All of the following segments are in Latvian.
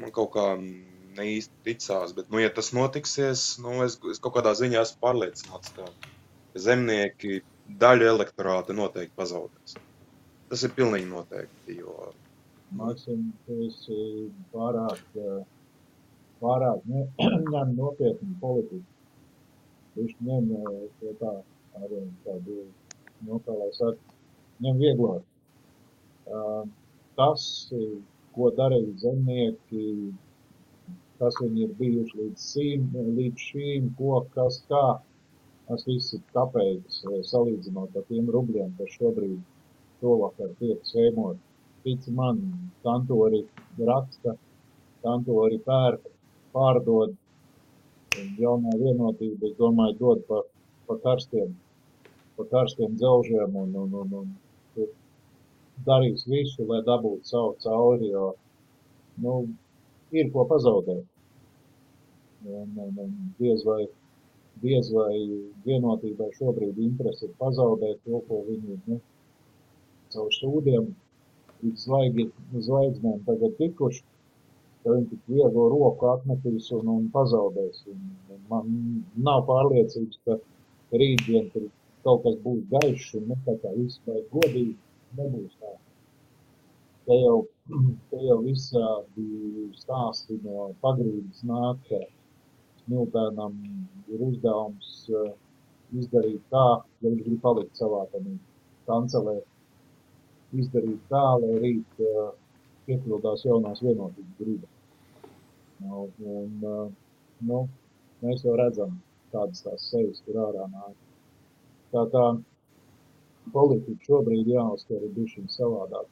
man kaut kā neīsti ticās, bet, ja tas notiksies, es kaut kādā ziņā esmu pārliecināts, ka zemnieki daļu elektorāta noteikti pazaudēs. Tas ir pilnīgi noteikti, jo... Maksim, tu esi pārāk ņem nopietni politiku. Viņš ņem tā arī tādu, kā lai saka, ņem vieglāk. Tas, ko darīja zemnieki, kas viņi ir bijuši līdz šīm, ko, kas kā, tas viss ir kapeikas, salīdzinot ar tiem rubļiem, kas šobrīd šovakar tiek sēmot. Tici man, kantori raksta, kantori pērk, pārdod, jaunā vienotība, es domāju, dod pa karstiem dzelžiem un darīs visu, lai dabūtu savu cauri, jo, ir ko pazaudēt. Un diez vai vienotībai šobrīd interesi ir pazaudēt to, ko viņi, caur sūdiem līdz zvaigznēm tagad tikuši, ka viņi tik viegli roku atmetīs un pazaudēs. Un man nav pārliecības, ka rītdien tur kaut kas būs gaišs un tā kā viss vai godīgi nebūs tā. Te jau visādi stāsti no pagrīdes nāk, ka Smiltēnam ir uzdevums izdarīt tā, ja viņš grib palikt savā kancelē, izdarīt tā, lai rīt piepildās jaunās vienotības griba. Mēs jau redzam, kādas tās sejas tur ārā nāk. Tā politika šobrīd jāuztver ir bišķiņ savādāk.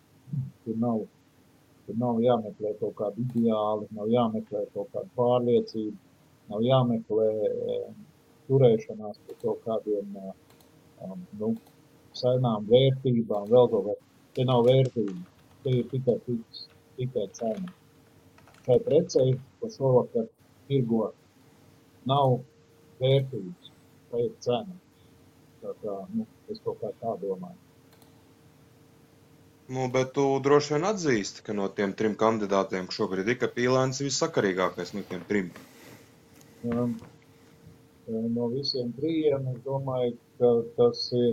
Tur nav jāmeklē kaut kādi ideāli, nav jāmeklē kaut kāda pārliecība, nav jāmeklē turēšanās par kaut kādiem senām vērtībām, vēl kaut kā. Te nav vērtība, te ir tikai cena. Šai precei, ko šovakar tirgo, nav vērtības, tā ir cena. Tā, es kaut kā tā domāju. Bet tu droši vien atzīsti, ka no tiem 3 kandidātiem šobrīd ir, ka Pīlēns ir vissakarīgākais no tiem 3. No visiem 3, es domāju, ka tas ir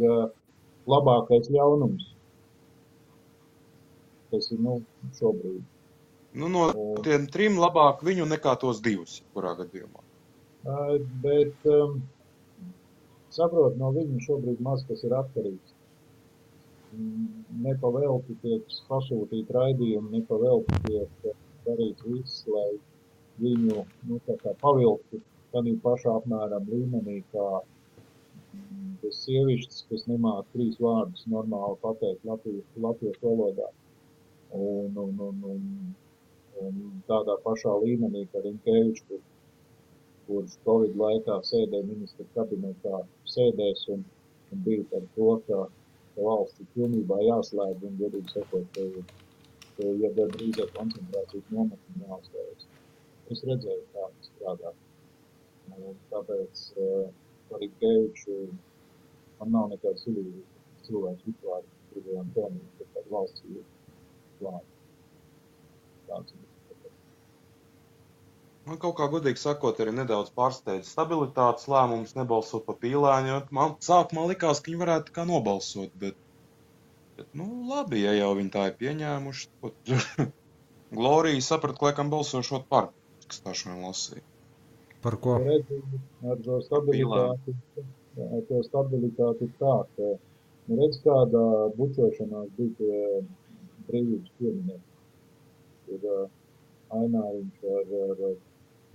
labākais ļaunums. Tas ir, šobrīd. No tiem 3 labāk viņu nekā tos 2, kurā gadījumā. Bet, saprot, no viņu šobrīd maz kas ir atkarīgs. Nepavelti tiek pasūtīt raidījumi, nepavelti tiek darīts viss, lai viņu, pavilktu tādā pašā apmēram līmenī, kā tas sievišķis, kas nemāk 3 vārdus normāli pateikt latviešu valodā. Un tādā pašā līmenī, kā Rinkevičs, kurš Covid laikā sēdēja ministra kabinetā, sēdēs un bija par to, ka valsts ir pilnībā jāslēdz un, godīgi sakot, ja drīzāk koncentrācijas nometni jāuzstājas. Es redzēju, kā tas strādā. Tāpēc par Rinkeviču man nav nekāds cilvēks vispār gribējām pelnīt, ka tāda valsts ir klāta. Man kaut kā godīgi sakot arī nedaudz pārsteidz stabilitātes lēmums nebalsot pa Pīlēni, jo man sākumā likās, ka viņi varētu kā nobalsot, bet labi, ja jau viņi tā ir pieņēmuši. Glorija saprata, ka laikam balsošot par, kas tā šodien lasīja. Par ko? Ar to stabilitāti ir tā, ka redz kādā bučošanās bija pie brīvības pieminēt. Ir Aināriņš ar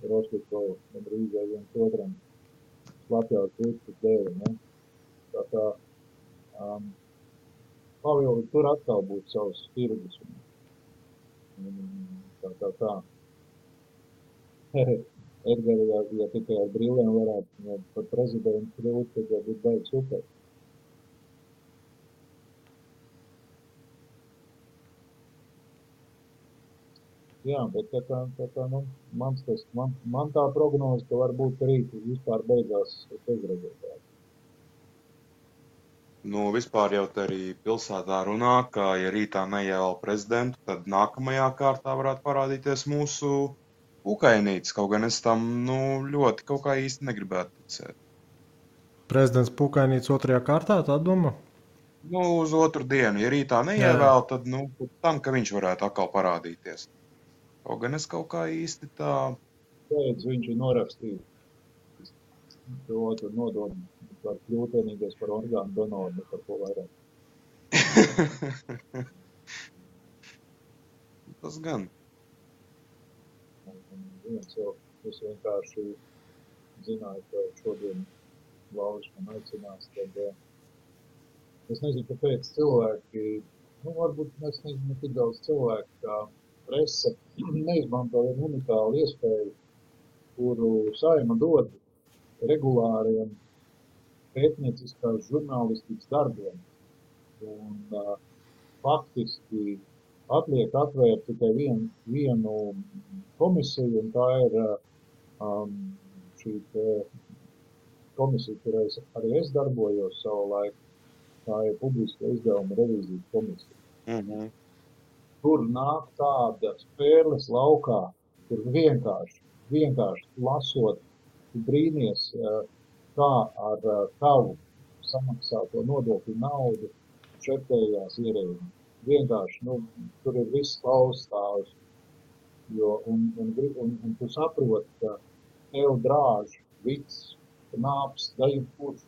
Rostikovu un Rīgai viens otram Latvijas puķis dēļ, ne? Tā Pavili tur atkal būtu savas tirgus. Tā. Edgari, ja tikai ar brīviem varētu par prezidentu kļūt, tad jau būtu baigi super. Jā, bet man tā prognoze, ka varbūt rīt vispār beigās bezrezultāti. Nu, vispār jau te arī pilsētā runā, ka, ja rītā neievēl prezidentu, tad nākamajā kārtā varētu parādīties mūsu Pukainītis. Kaut gan es tam, ļoti kaut kā īsti negribētu ticēt. Prezidents Pukainīts 2. kārtā, tā domā? Uz otru dienu, ja rītā neievēl, tad, pēc tam, ka viņš varētu atkal parādīties. Kaut gan es kaut kā īsti tā... Pēc viņš ir norakstījis to otru nodomu, var kļūt vienīgais par orgānu donoru, par ko vairāk. Tas gan. Viens jau, es vienkārši zināju, ka šodien Lauris man aicinās, tad es nezinu, kāpēc cilvēki, varbūt es nezinu, ne tik daudz cilvēku, kā prese neizmanto vienu unikālu iespēju, kuru Saeima dod regulāriem pētnieciskās žurnālistikas darbiem. Un faktiski atliek atvērt tikai vienu komisiju, un tā ir šī komisija, kurā arī es darbojos savu laiku. Tā ir publiska izdevuma revīzijas komisija. Tur nāk tāda spēles laukā, kur vienkārši lasot, brīnies, kā ar tavu samaksāto nodokļu naudu šeptējās ierēģi. Vienkārši, tur ir viss klaustāvs, un tu saproti, ka tev drāž viss, nāps, dajumkurš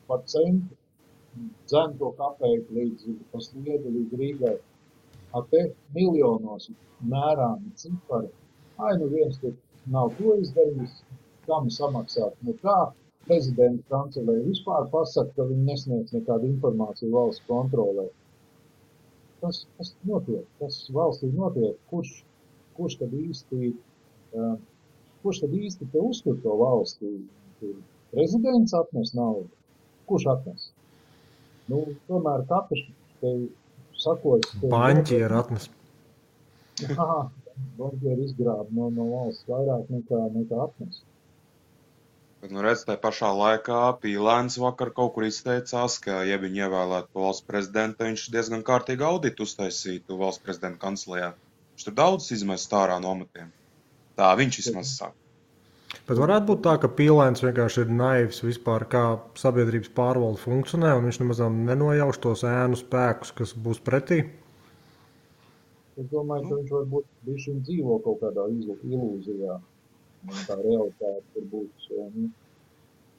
par centu, dzen to kapeiku līdz sliedu, līdz Rīgai. Te miljonos mērāmi cipari. Viens tur nav to izdarījis, kam samaksāt. Kā prezidenta kancelēja vispār pasaka, ka viņi nesniedz nekādu informāciju valsts kontrolē. Tas notiek, tas valstī notiek. Kurš tad īsti te uztur to valstī? Prezidents atnes naudu. Kurš atnes? Tomēr katrs te sakos... Baņķieri atnes. Baņķieri izgrāb no valsts vairāk nekā atnes. Bet, redz, tajā pašā laikā Pīlēns vakar kaut kur izteicās, ka, ja viņi ievēlētu valsts prezidenta, viņš diezgan kārtīgi auditu uztaisītu valsts prezidenta kancelējā. Viņš tur daudz izmest ārā no amatiem. Tā viņš vismaz saka. Bet varētu būt tā, ka Pīlēns vienkārši ir naivs vispār, kā sabiedrības pārvalde funkcionē, un viņš nemaz nenojauš tos ēnu spēkus, kas būs pretī? Es domāju, ka viņš varbūt bišķiņ dzīvo kaut kādā ilūzijā. Tā realitāte tur būs.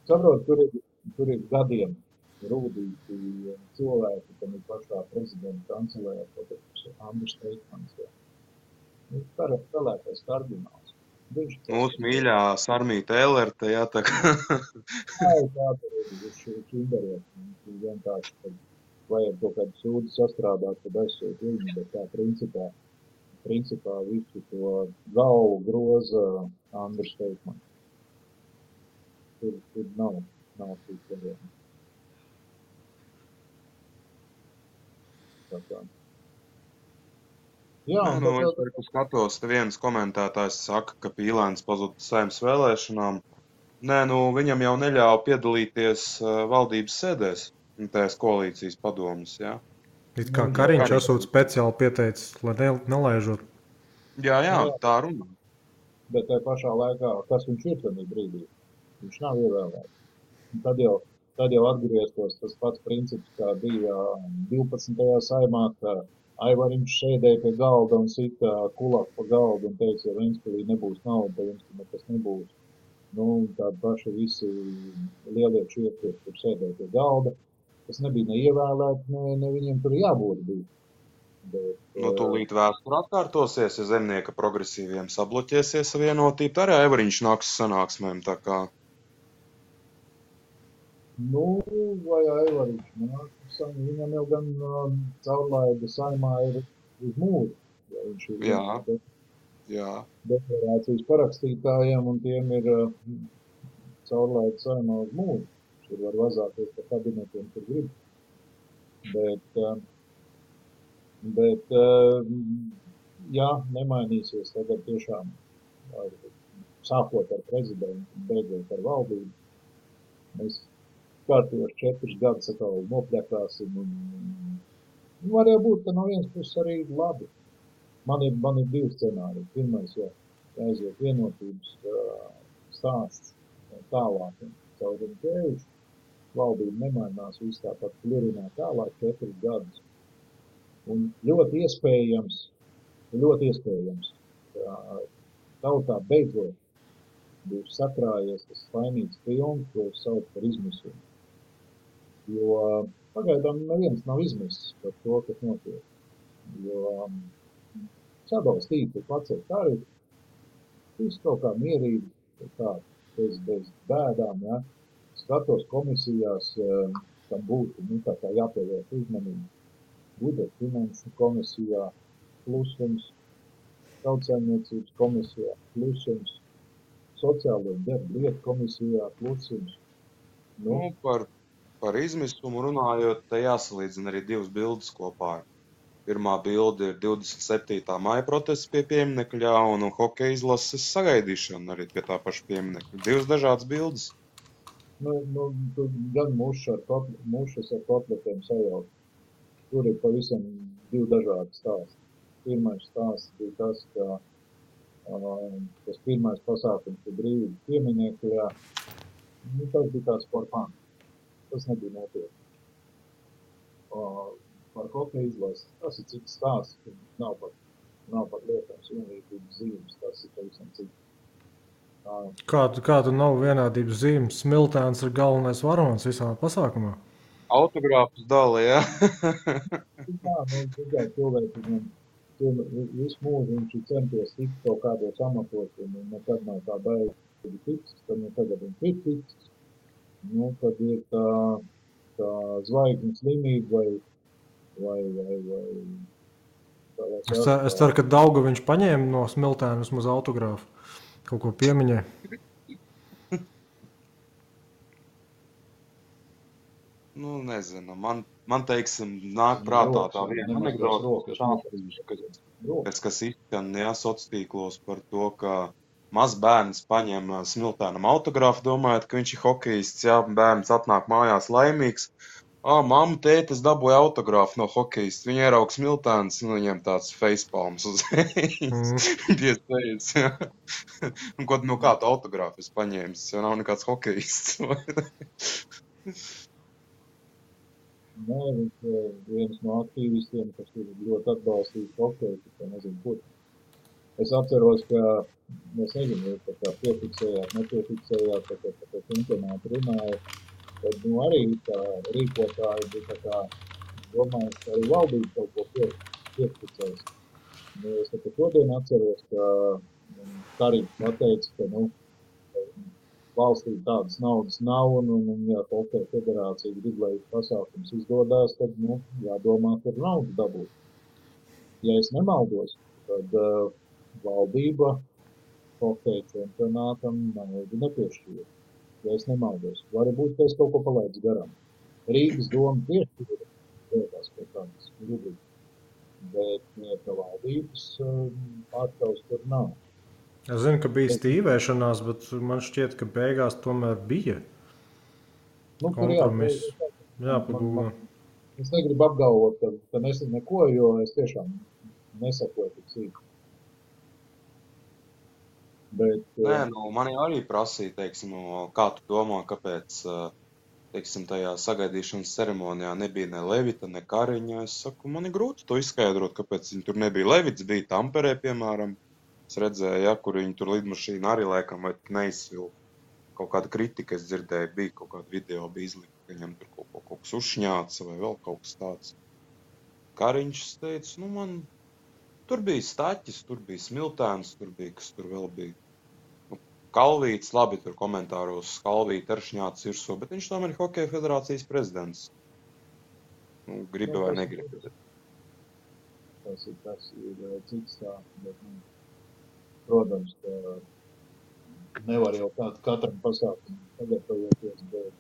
Saprot, tur ir gadiem rūdīti cilvēki, kam ir pašā prezidenta kancelējā, kaut Andris Teikmans. Spēlētais kardināls. Mūsu mīļā Sarmīta Elerte, jā, tā kā. Tā viņš indariet. Vienkārši, kad vajag kaut kādu sūdu sastrādāt, tad aizsūt viņu, bet tā principā visu to galvu groza Andris Teikmans. Tur nav cīkļiem. Tā kā. Jā, es skatos, te viens komentētājs saka, ka Pīlēns pazuda Saeimas vēlēšanām. Nē, viņam jau neļāva piedalīties valdības sēdēs, tās koalīcijas padomas, jā. It kā Kariņš esot speciāli pieteicis, lai nelaižot. Jā, tā runā. Bet tajā pašā laikā, kas viņš ir tajā brīdī? Viņš nav ievēlēts. Tad jau atgrieztos tas pats princips, kā bija 12. Saeimā, ka Aivariņš sēdēja pie galda un sita kulaku pa galdu un teica, ja Ventspilī nebūs nauda, tad jums nekas nebūs. Tādi paši visi lielie čieki, kur sēdēja pie galda. Tas nebija neievēlēt, ne viņiem tur jābūt bija. Bet, tūlīt vēsture atkārtosies, ja Zemnieka progresīviem sabloķēsies vienotība, arī Aivariņš nāks sanāksmēm, tā kā. Vai Aivariņš nāk, viņam jau gan caurlaida Saeimā ir uz mūžu. Ja viņš ir Jā. Deklarācijas parakstītājiem, un tiem ir caurlaida Saeimā uz mūžu. Tur var vazāties pa kabinetiem, kur grib. Bet ja nemainīsies tagad tiešām sākot ar prezidentu, beidzot ar valdību, mēs kārtījos 4 gadus atkal nopļakāsim. Var jau būt, ka no vienas puses arī labi. Man ir 2 scenāriji. Pirmais, ja aiziet vienotības stāsts tālāk caur Rinkēviču, valdība nemainās, viss tāpat klurinā tālāk 4 gadus. Un ļoti iespējams, ka tautā beidzot būs sakrājies tas vainīgs triumfs, ko sauc par izmisumu. Jo pagaidām neviens nav izmisis par to, kas notiek. Jo sadalstīt ir pacelt tarifu, viss kaut kā mierīgi, tā, bez bēdām, ja. Skatos komisijās, tam būtu, tā kā jāpievērš uzmanību. Budžeta finanšu komisijā plusums, tautsājumniecības komisijā plusums, sociālo darbu lietu komisijā plusums. Nu, par izmisumu runājot, te jāsalīdzina arī 2 bildes kopā. Pirmā bilde ir 27. maija protests pie pieminekļa un hokeja izlases sagaidīšana arī pie tā paša pieminekļa. 2 dažādas bildes. Gan mušas ar kotletiem sajaukt. Tur ir pavisam 2 dažādi stāsti. Pirmais stāsts bija tas, ka tas pirmais pasākums pie brīvības pieminekļā, tas bija tāds par fanu. Tas nebija nopietni. Par hokeja izlasi, tas ir cits stāsts, ka nav pat lietams vienlīdzības zīmes, tas ir pavisam cits. Kā tu nav vienādības zīmes? Smiltēns ir galvenais varonis visā pasākumā. Autogrāfus dala, jā. Tikai cilvēki, visu mūžu viņš ir centies tikt kaut kādos amatos, un nekad nav tā baigi tiks, tad tagad viņš ir tiks. Tad ir tā zvaigznes slimība vai Es ceru, ka Daugaviņš paņēma no Smiltēna vismaz autogrāfu. Kaut ko piemiņē. Nezinu. Man teiksim, nāk prātā tā viena anekdote, kas izskan, sociālos tīklos par to, ka mazs bērns paņem Smiltēnam autogrāfu, domājot, ka viņš ir hokejists, jā, bērns atnāk mājās laimīgs. Mamma, tēti, es dabūju autogrāfu no hokejista. Viņa ierauga Smiltēns, viņam tāds facepalms uz piespējas. Un kā tu autogrāfu es paņēmis, jo nav nekāds hokejists. Nē, viņš ir viens no aktīvistiem, kas ir ļoti atbalstījis hokeju, ka nezinu, kur. Es atceros, ka, es nezinu, ka tā piefiksējāt, nepiefiksējāt, ka par čempionātu runāja. Tad arī tā rīkotāji bija tā kā domāju, ka arī valdība kaut ko piefiksēs. Es šodien atceros, ka Karīgs pateica, ka valstī tādas naudas nav, un ja hokeja federācija grib, lai pasākums izdodās, tad jādomā, kur naudu dabūt. Ja es nemaldos, tad valdība hokeja čempionātam naudu nepiešķīra. Ja es nemaldos. Varbūt, ka es kaut ko palaidu garām. Rīgas doma piešķīra lietās pie tādas rubrikas, bet valdības pārstāvs tur nav. Es zinu, ka bija stīvēšanās, bet man šķiet, ka beigās tomēr bija kompromiss. Jāpagūda. Es negribu apgalvot, ka nesam neko, jo es tiešām nesakoju tik sīk. Bet, man arī prasīja, teiksim, kā tu domā, kāpēc, teiksim, tajā sagaidīšanas ceremonijā nebija ne Levita, ne Kariņa. Es saku, man ir grūti to izskaidrot, kāpēc viņi tur nebija. Levits bija Tamperē, piemēram. Es redzēju, kur viņi tur lidmašīna arī laikam vai neizsvilpa. Kaut kāda kritika, es dzirdēju, bija kaut kāda video, bija izlikta, ka viņam tur kaut kas uzšņāca vai vēl kaut kas tāds. Kariņš teica, man tur bija Staķis, tur bija Smiltēns, tur bija, kas tur vēl bija. Kalvīts, labi, tur komentāros Kalvīti ar šņāts virsū, bet viņš tomēr ir Hokeja federācijas prezidents. Gribi vai negribi. Tas ir cits tā, bet, protams, ka nevar jau katram pasākumu sagatavoties, bet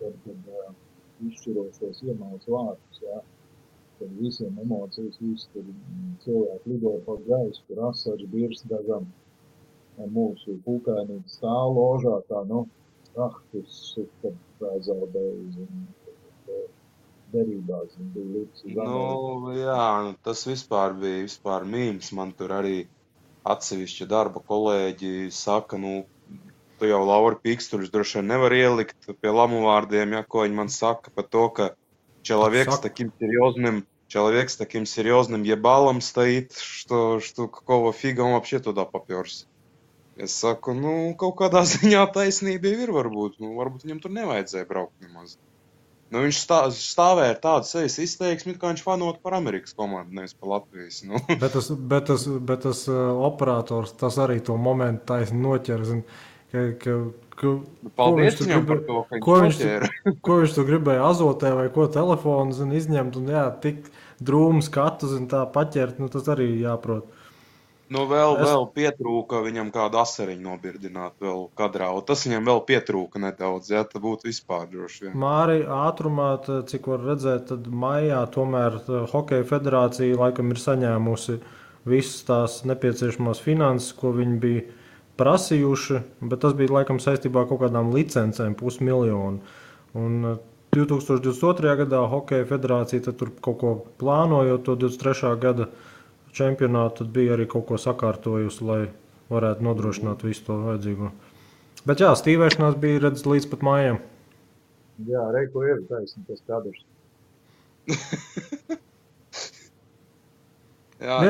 kad izšķirošos iemauc vārtus, jā, kad visiem emocijas, visi tur cilvēki lido pa gaisu, tur asars, birs dažam, mūsu pūkainīgi stāv ložā, tā, raktus, kad zaudēja, zin, derībās, zin, bija līdz uz Ameriku. Jā, tas vispār bija mīms. Man tur arī atsevišķi darba kolēģi saka, tu jau Lauri Pīkstuļus droši vien nevar ielikt pie lamu vārdiem, ja, ko viņi man saka par to, ka человек с таким серьезным ебалом стоит, что какого фига он вообще туда попёрся. Es saku, kaut kādā ziņā taisnība ir varbūt. Varbūt viņam tur nevajadzēja braukt nemaz. Viņš stāvēja ar tādu sejas izteiksmi, kā viņš fanot par Amerikas komandu, nevis par Latvijas. Bet tas operators, tas arī to momentu taisni noķer. Paldies viņam par to, ka viņš noķēra. Ko viņš tur gribēja azotē vai ko telefonu izņemt un tik drūmu skatu tā paķert, tas arī jāprot. Vēl pietrūka viņam kādu asariņu nobirdināt vēl kadrā, un tas viņam vēl pietrūka nedaudz, ja, tad būtu vispār droši vien. Māri, ātrumā, cik var redzēt, tad maijā tomēr Hokeja federācija laikam ir saņēmusi visas tās nepieciešamās finanses, ko viņi bija prasījuši, bet tas bija laikam saistībā ar kaut kādām licencēm, 500 000. Un 2022. gadā Hokeja federācija tad tur kaut ko plānojot to 23. gada čempionātu, tad bija arī kaut ko sakārtojusi, lai varētu nodrošināt visu to vajadzīgo. Bet jā, stīvēšanās bija redzes līdz pat mājām. Jā, Reiko ir taisni tas kadrs. Jā,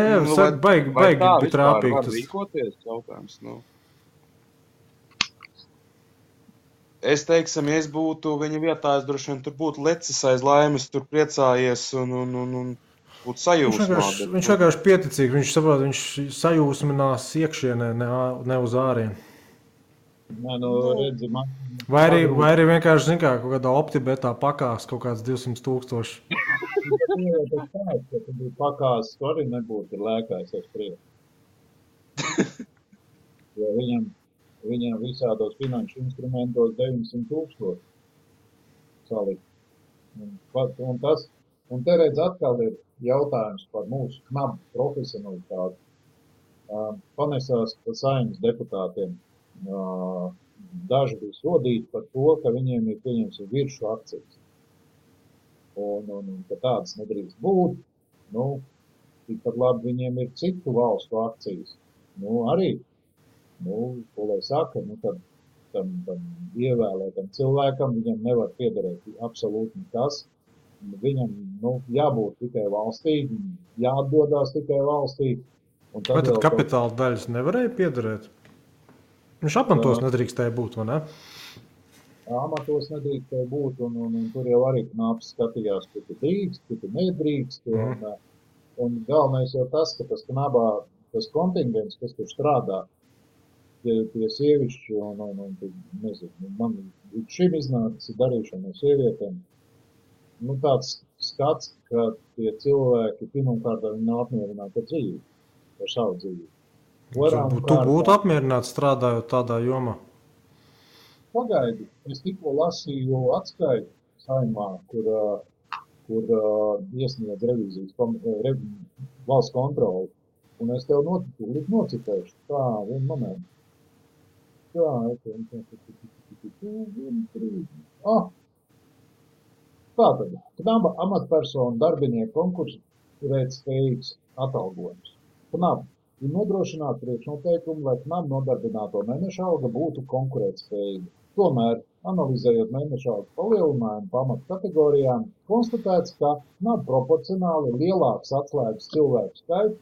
baigi trāpīgi. Var rīkoties jautājums, Es teiksim, ja es būtu viņa vietā, es droši vien tur būtu lecis aiz laimes, tur priecājies un būtu sajūsmā. Viņš vienkārši pieticīgi, viņš saprot, viņš sajūsminās iekšienē, ne uz ārienu. Nē, redzi, man... Vai arī vienkārši, zin kā, kaut kādā optibetā pakās kaut kāds 200,000. Ja tu bija pakās, tu arī nebūtu lēkājis aiz priekšu. Jo viņam visādos finanšu instrumentos 900,000 salikt. Un te redz atkal ir jautājums par mūsu knabu profesionalitāti. Panesās par saimnes deputātiem. Daži bija sodīti par to, ka viņiem ir pieņemts viršu akcijas. Un ka tādas nedrīkst būt. Tikpat labi viņiem ir citu valstu akcijas. Arī, ko lai saka, tad tam ievēlētam cilvēkam viņam nevar piederēt absolūti nekas. Viņam jābūt tikai valstī, jāatdodās tikai valstī. Vai tad kapitāla daļas nevarēja piederēt? Viņš amatos nedrīkstēja būt, vai ne? Amatos nedrīkstēja būt, un tur jau arī knaps skatījās, kur tu drīkst, kur tu nedrīkst. Un galvenais jau tas, ka tas knabā, tas kontingents, kas tur strādā, tie sievišķi, nezinu, man šim iznācis darīšana no sievietēm. Tāds skats, ka tie cilvēki pirmkārt viņi nav apmierināti ar dzīvi, ar savu dzīvi. Tu būtu apmierināts strādājot tādā jomā? Pagaidi, es tikko lasīju atskaitu saimā, kur iesniedz revīzijas valsts kontroli, un es tev nocitēšu. Tā, vienu momentu. Tātad, knaba amatpersonu darbinieku konkurētspējīgs spējīgs atalgojums. Knaba ir nodrošināt priekšnoteikumu, lai knaba nodarbināto mēneša alga būtu konkurētspējīga. Tomēr, analizējot mēneša algas palielinājumu pa amatu kategorijām, konstatēts, ka knaba proporcionāli lielāks atslēgas cilvēku skaits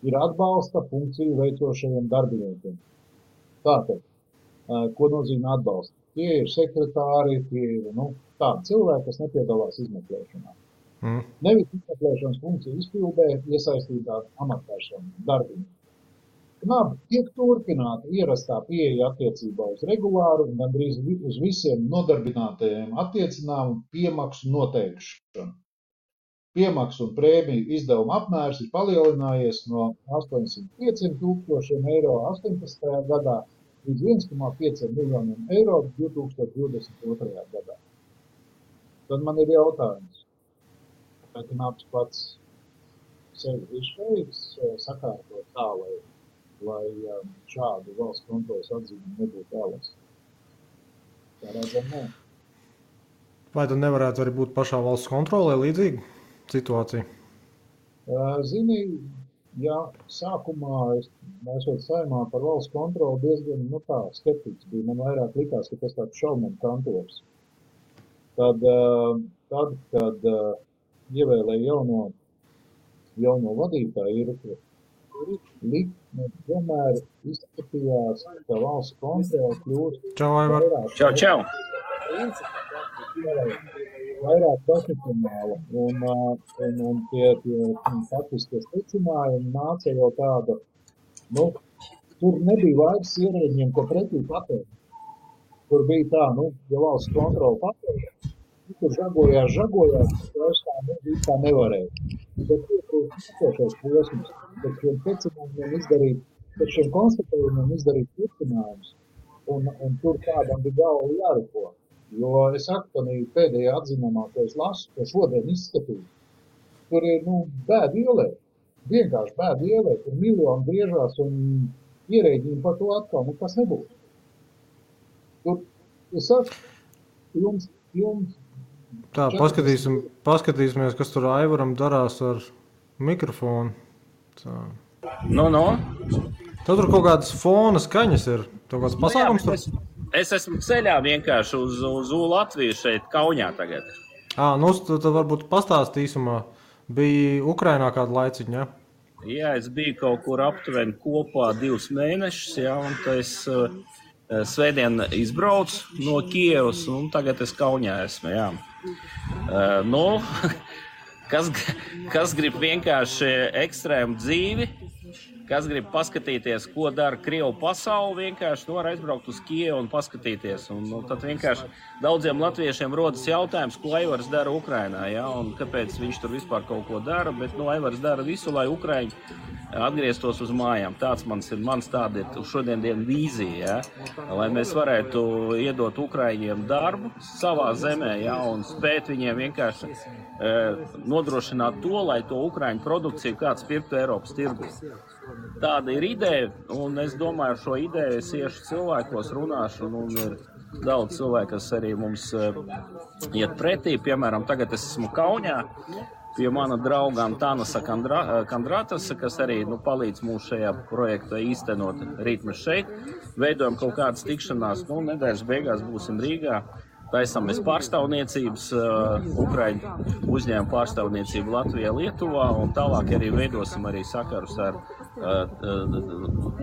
ir atbalsta funkciju veicošajiem darbiniekiem. Tātad, ko nozīmē atbalsta? Tie ir sekretāri, tie ir tādi cilvēki, kas nepiedalās izmeklēšanā. Nevis izmeklēšanas funkciju izpildē iesaistītā amatpersonu darbinieku. Knaba tiek turpināta ierastā pieeja attiecībā uz regulāru un gandrīz uz visiem nodarbinātajiem attiecināmu piemaksu noteikšanu. Piemaksu un prēmiju izdevuma apmērs ir palielinājies no 805,000 eiro 18. gadā līdz 1,5 miljoniem eiro 2022. gadā. Tad man ir jautājums, vai knabs pats sevi ir spējīgs sakārtot tā, lai šādu valsts kontroles atzīmi nebūtu vēlas? Tā redzam, nē. Vai tad nevarētu arī būt pašā valsts kontrolē līdzīga situācija? Zini, ja sākumā mēs Saeimā par valsts kontroli diezgan, skeptiķis bija. Man vairāk likās, ka tas tāds šaubam kantors. Tad, kad ievēlēja jauno vadītāju, likme vienmēr izskatījās, ka valsts kontrole kļūst Čau, Aivar. Čau. Vairāk profesionāla, un tie faktiskie secinājumi nāca jau tāda, tur nebija vairs ierēģiem, ko pretī patēr. Tur bija tā, ja valsts kontrola patēr, tur žagojās, vairs tā nevarēja. Bet iepriekšējais posms, pēc šiem secinājumiem izdarīt, pēc šiem konstatējumiem izdarīt turpinājumus, un tur kādam bija galva jāriko. Jo es saku, ka pēdējā atzinumā, ko es lasu, ko šodien izskatīju, tur ir, bēdu ielē. Vienkārši bēdu ielē, tur miljoni griežās un ierēģiem par to atkal, kas nebūs. Tur, es saku, jums... Tā, paskatīsimies, kas tur Aivaram darās ar mikrofonu. Tā. No. Tad tur kaut kādas fona skaņas ir, kaut kāds pasākums tur? Es esmu ceļā vienkārši uz Latviju šeit, Kaunijā tagad. Tad varbūt pastāst īsumā. Bija Ukrainā kādu laiciņu, ja? Jā, es biju kaut kur aptuveni kopā 2 mēnešus, jā, un es svētdien izbraucu no Kievas, un tagad es Kaunijā esmu, jā. Kas grib vienkārši ekstrēmu dzīvi, kas grib paskatīties, ko dara Krievu pasauli, vienkārši var aizbraukt uz Kievu un paskatīties. Un tad vienkārši daudziem latviešiem rodas jautājums, ko Aivars dara Ukrainā, ja? Un kāpēc viņš tur vispār kaut ko dara, bet Aivars dara visu, lai Ukraiņi atgrieztos uz mājām. Mans tāda ir šodien vīzija, ja? Lai mēs varētu iedot Ukraiņiem darbu savā zemē, ja? Un spēt viņiem vienkārši nodrošināt to, lai to Ukraiņu produkciju kāds pirktu Eiropas tirgu. Tāda ir ideja, un es domāju, ar šo ideju es iešu cilvēkos, runāšu, un ir daudz cilvēku, kas arī mums iet pretī. Piemēram, tagad es esmu Kaunijā pie mana drauga Antanasa Kandratasa, kas arī palīdz mums šajā projektā īstenot. Rīt mēs šeit veidojam kaut kādas tikšanās, nedēļas beigās būsim Rīgā. Taisamies pārstāvniecības, Ukraiņu uzņēmumu pārstāvniecību Latvijā, Lietuvā, un tālāk arī veidosim arī sakarus ar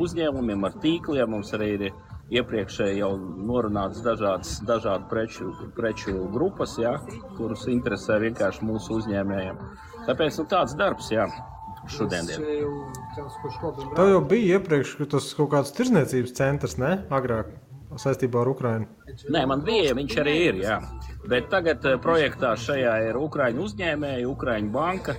uzņēmumiem, ar tīkliem. Mums arī ir iepriekšēji jau norunāts dažādu preču grupas, ja, kurus interesē vienkārši mūsu uzņēmējiem. Tāpēc tāds darbs, jā, šodien. Tev jau bija iepriekš tas kaut kāds tirzniecības centrs, ne? Agrāk saistībā ar Ukrainu. Nē, man bija, viņš arī ir, jā. Bet tagad projektā šajā ir Ukraiņu uzņēmēji, Ukraiņu banka.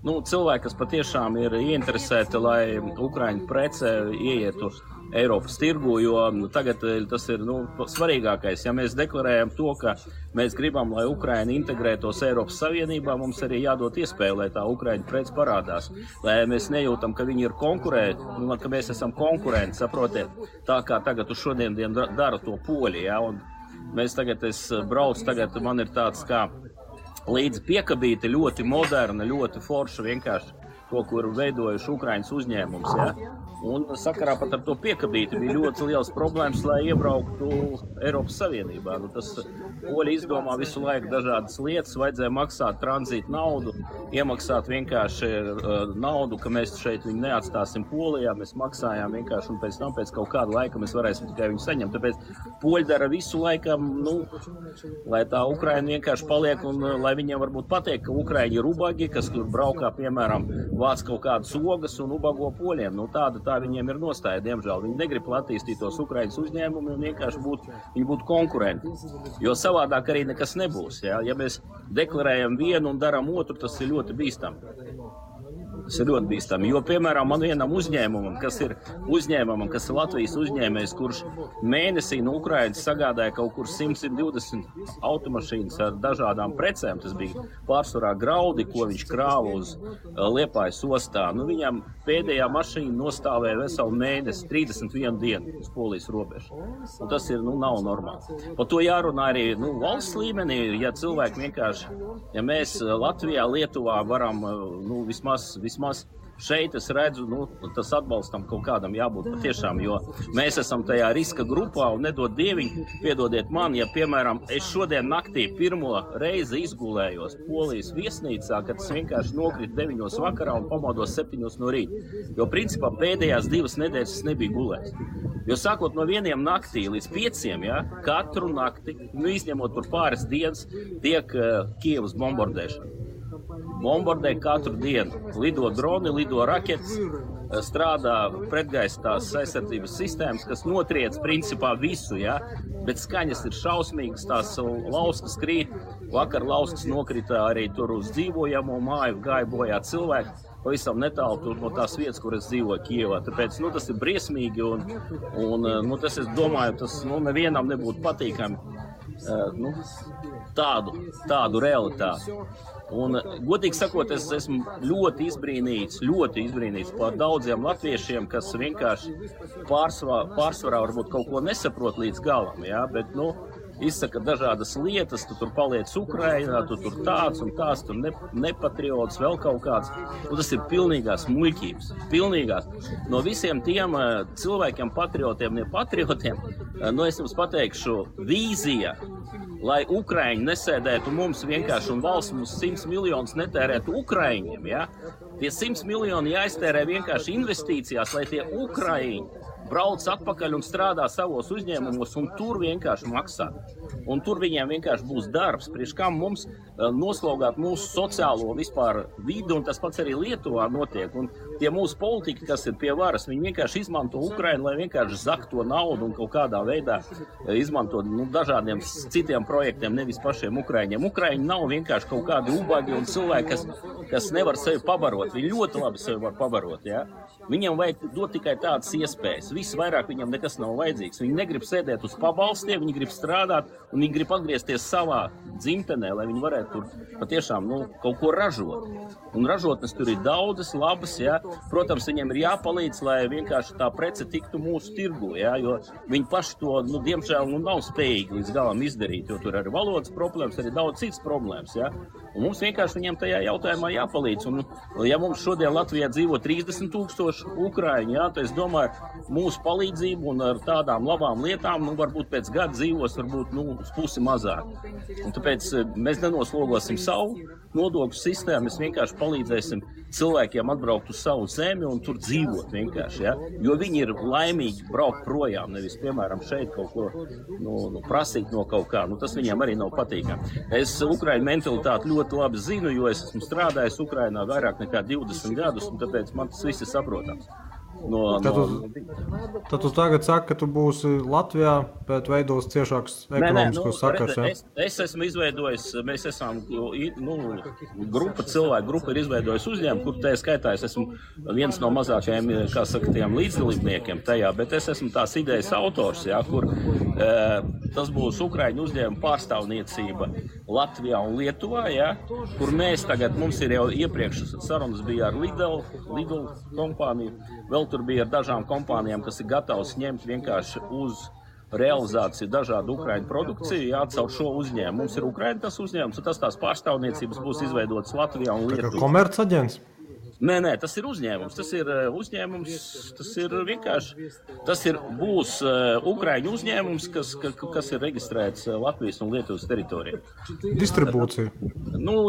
Cilvēki, kas patiešām ir ieinteresēti, lai Ukraiņu prece ieietu Eiropas tirgu, jo tagad tas ir svarīgākais. Ja mēs deklarējam to, ka mēs gribam, lai Ukraina integrētos Eiropas Savienībā, mums arī jādod iespēju, lai tā Ukraiņu prece parādās. Lai mēs nejūtam, ka viņi ir konkurēti, ka mēs esam konkurenti, saprotiet, tā kā tagad uz šodien dara to poļi. Ja? Un mēs es braucu, man ir tāds kā līdzi piekabīti, ļoti moderna, ļoti forša vienkārši to, kur veidojuši Ukraiņas uzņēmums. Ja? Un sakarā pat ar to piekabīti bija ļoti liels problēmas, lai iebrauktu Eiropas Savienībā. Tas poļi izdomā visu laiku dažādas lietas, vajadzēja maksāt tranzītu naudu, iemaksāt vienkārši naudu, ka mēs šeit viņu neatstāsim Polijā, mēs maksājām vienkārši, un pēc tam pēc kaut kāda laika mēs varēsim tikai viņu saņemt. Tāpēc poļi dara visu laikam, lai tā Ukraina vienkārši paliek, un lai viņiem varbūt pateikt, ka Ukraiņi ir ubagi, kas tur braukā, piemēram, vāc kaut kādas ogas un ubago poļiem. Tā viņiem ir nostāja, diemžēl. Viņi negrib attīstīt tos Ukraiņas uzņēmumus un vienkārši būtu konkurenti. Jo savādāk arī nekas nebūs. Ja mēs deklarējam vienu un darām otru, tas ir ļoti bīstami. Tas ir ļoti bīstami, jo, piemēram, man vienam uzņēmumam, kas ir Latvijas uzņēmējs, kurš mēnesī no Ukrainas sagādāja kaut kur 100-120 automašīnas ar dažādām precēm, tas bija pārsvarā graudi, ko viņš krāva uz Liepājas ostā. Nu, viņam pēdējā mašīna nostāvēja veselu mēnesi, 31 dienu uz Polijas robežu. Un tas ir, nav normāli. Par to jārunā arī, valsts līmenī, ja cilvēki vienkārši, ja mēs Latvijā, Lietuvā varam, vismaz šeit es redzu, tas atbalstam kaut kādam jābūt patiešām, jo mēs esam tajā riska grupā un nedod dieviņu, piedodiet man, ja, piemēram, es šodien naktī pirmo reizi izgulējos Polijas viesnīcā, kad es vienkārši nokritu 9 vakarā un pamodos 7 no rīta, jo principā pēdējās 2 nedēļas es nebiju gulējis. Jo sākot no 1 naktī līdz 5, ja, katru nakti, izņemot tur pāris dienas, tiek Kievas bombardēšana. Bombardē katru dienu. Lido droni, lido raketas, strādā pretgaisa tās aizsardzības sistēmas, kas notriec principā visu, ja? Bet skaņas ir šausmīgas, tās lauskas krīt. Vakar lauskas nokrita arī tur uz dzīvojamo māju, gāja bojā cilvēki. Pavisam netālu tur no tās vietas, kur es dzīvoju Kievā. Tāpēc, tas ir briesmīgi un tas, es domāju, tas, nevienam nebūtu patīkami, tādu realitāti. Un, godīgi sakot, es esmu ļoti izbrīnīts par daudziem latviešiem, kas vienkārši pārsvarā varbūt kaut ko nesaprot līdz galam, ja? Bet, izsaka dažādas lietas, tu tur paliec Ukrainā, tu tur tāds un tās, tur nepatriots, vēl kaut kāds. Un tas ir pilnīgās muļķības, pilnīgās. No visiem tiem cilvēkiem, patriotiem, nepatriotiem, es jums pateikšu, vīzija, lai Ukraiņi nesēdētu mums vienkārši un valsts mums 100 miljonus netērētu Ukraiņiem, ja? Tie 100 miljoni jāiztērē vienkārši investīcijās, lai tie Ukraiņi brauc atpakaļ un strādā savos uzņēmumos un tur vienkārši maksā. Un tur viņiem vienkārši būs darbs, priekš kam mums noslogāt mūsu sociālo vispār vidi, un tas pats arī Lietuvā notiek. Un tie mūsu politiķi, kas ir pie varas, viņi vienkārši izmanto Ukrainu, lai vienkārši zakt to naudu un kaut kādā veidā izmanto dažādiem citiem projektiem, nevis pašiem Ukraiņiem. Ukraiņi nav vienkārši kaut kādi ubagi un cilvēki, kas nevar sevi pabarot. Viņi ļoti labi sevi var pabarot, ja? Viņiem vajag dot tikai tādas iespējas. Viss vairāk viņam nekas nav vajadzīgs. Viņi negrib sēdēt uz pabalstiem, viņi grib strādāt un viņi grib atgriezties savā dzimtenē, lai viņi varētu tur patiešām kaut ko ražot. Un ražotnes tur ir daudzas, labas, ja? Protams, viņiem ir jāpalīdz, lai vienkārši tā prece tiktu mūsu tirgu, ja? Jo viņi paši to, diemžēl, nav spējīgi līdz galam izdarīt, jo tur ir valodas problēmas, arī daudz citas problēmas, ja? Un mums vienkārši viņiem tajā jautājumā jāpalīdz. Un, ja mums šodien Latvijā dzīvo 30 000 Ukraiņi, ja, tad es domāju, mūsu palīdzību un ar tādām labām lietām, varbūt pēc gada dzīvos, varbūt, uz pusi mazāk. Un tāpēc mēs nenoslogosim savu nodokļu sistēmu, mēs vienkārši palīdzēsim cilvēkiem atbraukt uz savu zemi un tur dzīvot vienkārši, ja? Jo viņi ir laimīgi braukt projām, nevis, piemēram, šeit kaut ko prasīt no kaut kā. Tas viņiem arī nav patīkami. Es Ukraiņu mentalitāti ļoti labi zinu, jo es esmu strādājis Ukrainā vairāk nekā 20 gadus, un tāpēc man tas viss ir saprotams. Tad tu tagad saki, ka tu būsi Latvijā, bet veidos ciešāks ekonomiskos sakars, ja? Es esmu izveidojis, mēs esam, grupa ir izveidojis uzņēmumu, kur tajā skaitā es esmu viens no mazākajiem, kā saka, tiem līdzdalībniekiem tajā, bet es esmu tās idejas autors, ja, kur tas būs Ukraiņu uzņēmuma pārstāvniecība Latvijā un Lietuvā, ja, kur mēs tagad, mums ir jau iepriekš sarunas bija ar Lidl kompāniju, vēl tur bija ar dažām kompānijām, kas ir gatavs ņemt vienkārši uz realizāciju dažādu Ukraiņu produkciju, jāatcaur šo uzņēmumu. Mums ir Ukraiņa tas uzņēmums, un tās pārstāvniecības būs izveidotas Latvijā un Lietuvā. Komercaģents? Nē, tas ir uzņēmums. Tas ir uzņēmums, tas ir vienkārši, būs Ukraiņu uzņēmums, kas ir reģistrēts Latvijas un Lietuvas teritorijā. Distribūcija?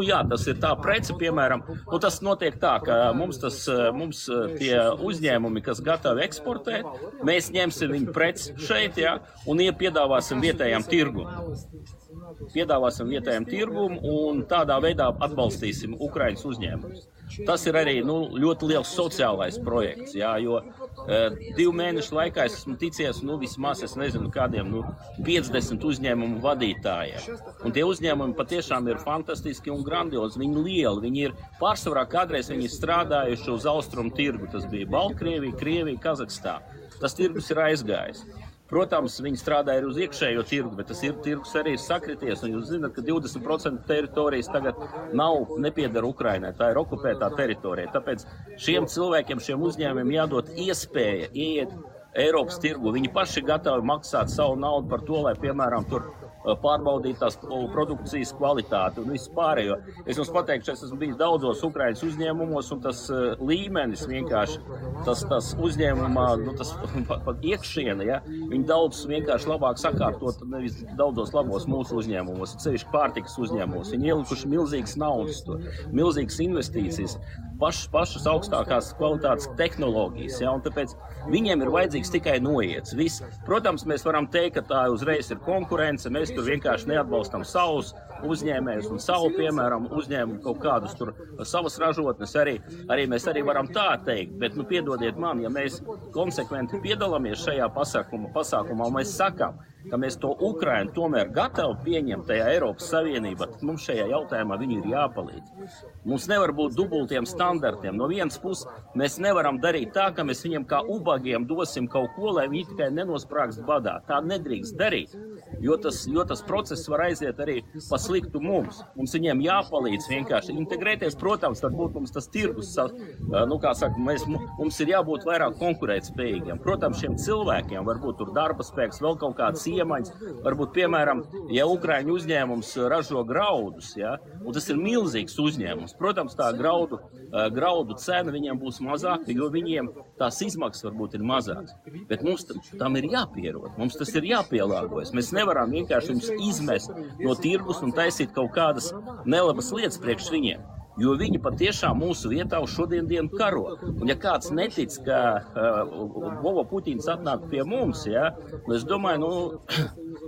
Jā, tas ir tā prece, piemēram, tas notiek tā, ka mums tie uzņēmumi, kas gatavi eksportēt, mēs ņemsim viņu preci šeit, ja, un piedāvāsim vietējām tirgumu un tādā veidā atbalstīsim Ukraiņas uzņēmumus. tas ir arī ļoti liels sociālais projekts, jā, jo 2 mēnešu laikā es esmu ticies, vismaz es nezinu kādiem 50 uzņēmumu vadītājiem. Un tie uzņēmumi patiešām ir fantastiski un grandiozi, viņi lieli, viņi ir pārsvarā kādreiz viņi strādājuši uz austrumu tirgu, tas bija Baltkrievija, Krievija, Kazahstāna. Tas tirgus ir aizgājis. Protams, viņi strādāja uz iekšējo tirgu, bet tas tirgus arī ir sakrities. Un jūs zināt, ka 20% teritorijas tagad nepiedara Ukrainai, tā ir okupētā teritorija. Tāpēc šiem cilvēkiem, šiem uzņēmumiem jādod iespēja ieiet Eiropas tirgu. Viņi paši gatavi maksāt savu naudu par to, lai, piemēram, tur pārbaudīt tās produkcijas kvalitāti un visu pārējo. Es jums pateikšu, es esmu bijis daudzos Ukrainas uzņēmumos, un tas līmenis vienkārši, tas uzņēmumā, tas pat iekšiena, ja, viņi daudz vienkārši labāk sakārtot, nevis daudzos labos mūsu uzņēmumos, sevišķi pārtikas uzņēmumos. Viņi ielikuši milzīgas naudas, milzīgas investīcijas, pašas augstākās kvalitātes tehnoloģijas, ja, un tāpēc viņiem ir vajadzīgs tikai noiets. Protams, mēs varam teikt, ka tā uzreiz ir konkurence, mēs tur vienkārši neatbalstam savus uzņēmējus un savu, piemēram, uzņēmumu kaut kādus tur savas ražotnes arī mēs arī varam tā teikt, bet, piedodiet man, ja mēs konsekventi piedalāmies šajā pasākumā, un mēs sakām, ka mēs to Ukrainu tomēr gatavi pieņemt tajā Eiropas Savienībā, tad mums šajā jautājumā viņi ir jāpalīdz. Mums nevar būt dubultiem standartiem. No vienas puses mēs nevaram darīt tā, ka mēs viņiem kā ubagiem dosim kaut ko, lai viņi tikai nenosprāgst badā. Tā nedrīkst darīt, jo tas process var aiziet arī pa sliktu mums. Mums viņiem jāpalīdz vienkārši integrēties. Protams, varbūt mums tas tirgus, mums ir jābūt vairāk konkurētspējīgiem. Protams, šiem cilvēkiem varbūt tur darba spēks, vēl kaut kāds iemaņas. Varbūt, piemēram, ja Ukraiņu uzņēmums ražo graudus, ja, un tas ir milzīgs uzņēmums, protams, tā graudu cena viņiem būs mazāka, jo viņiem tās izmaksas varbūt ir mazākas. Bet mums tam ir jāpierod, mums tas ir jāpielāgojas. Mēs nevaram vienkārši viņus izmest no tirgus un taisīt kaut kādas nelabas lietas priekš viņiem. Jo viņi patiešām mūsu vietā uz šodien dienu karo. Un ja kāds netic, ka Vova Puķins atnāk pie mums, ja, es domāju,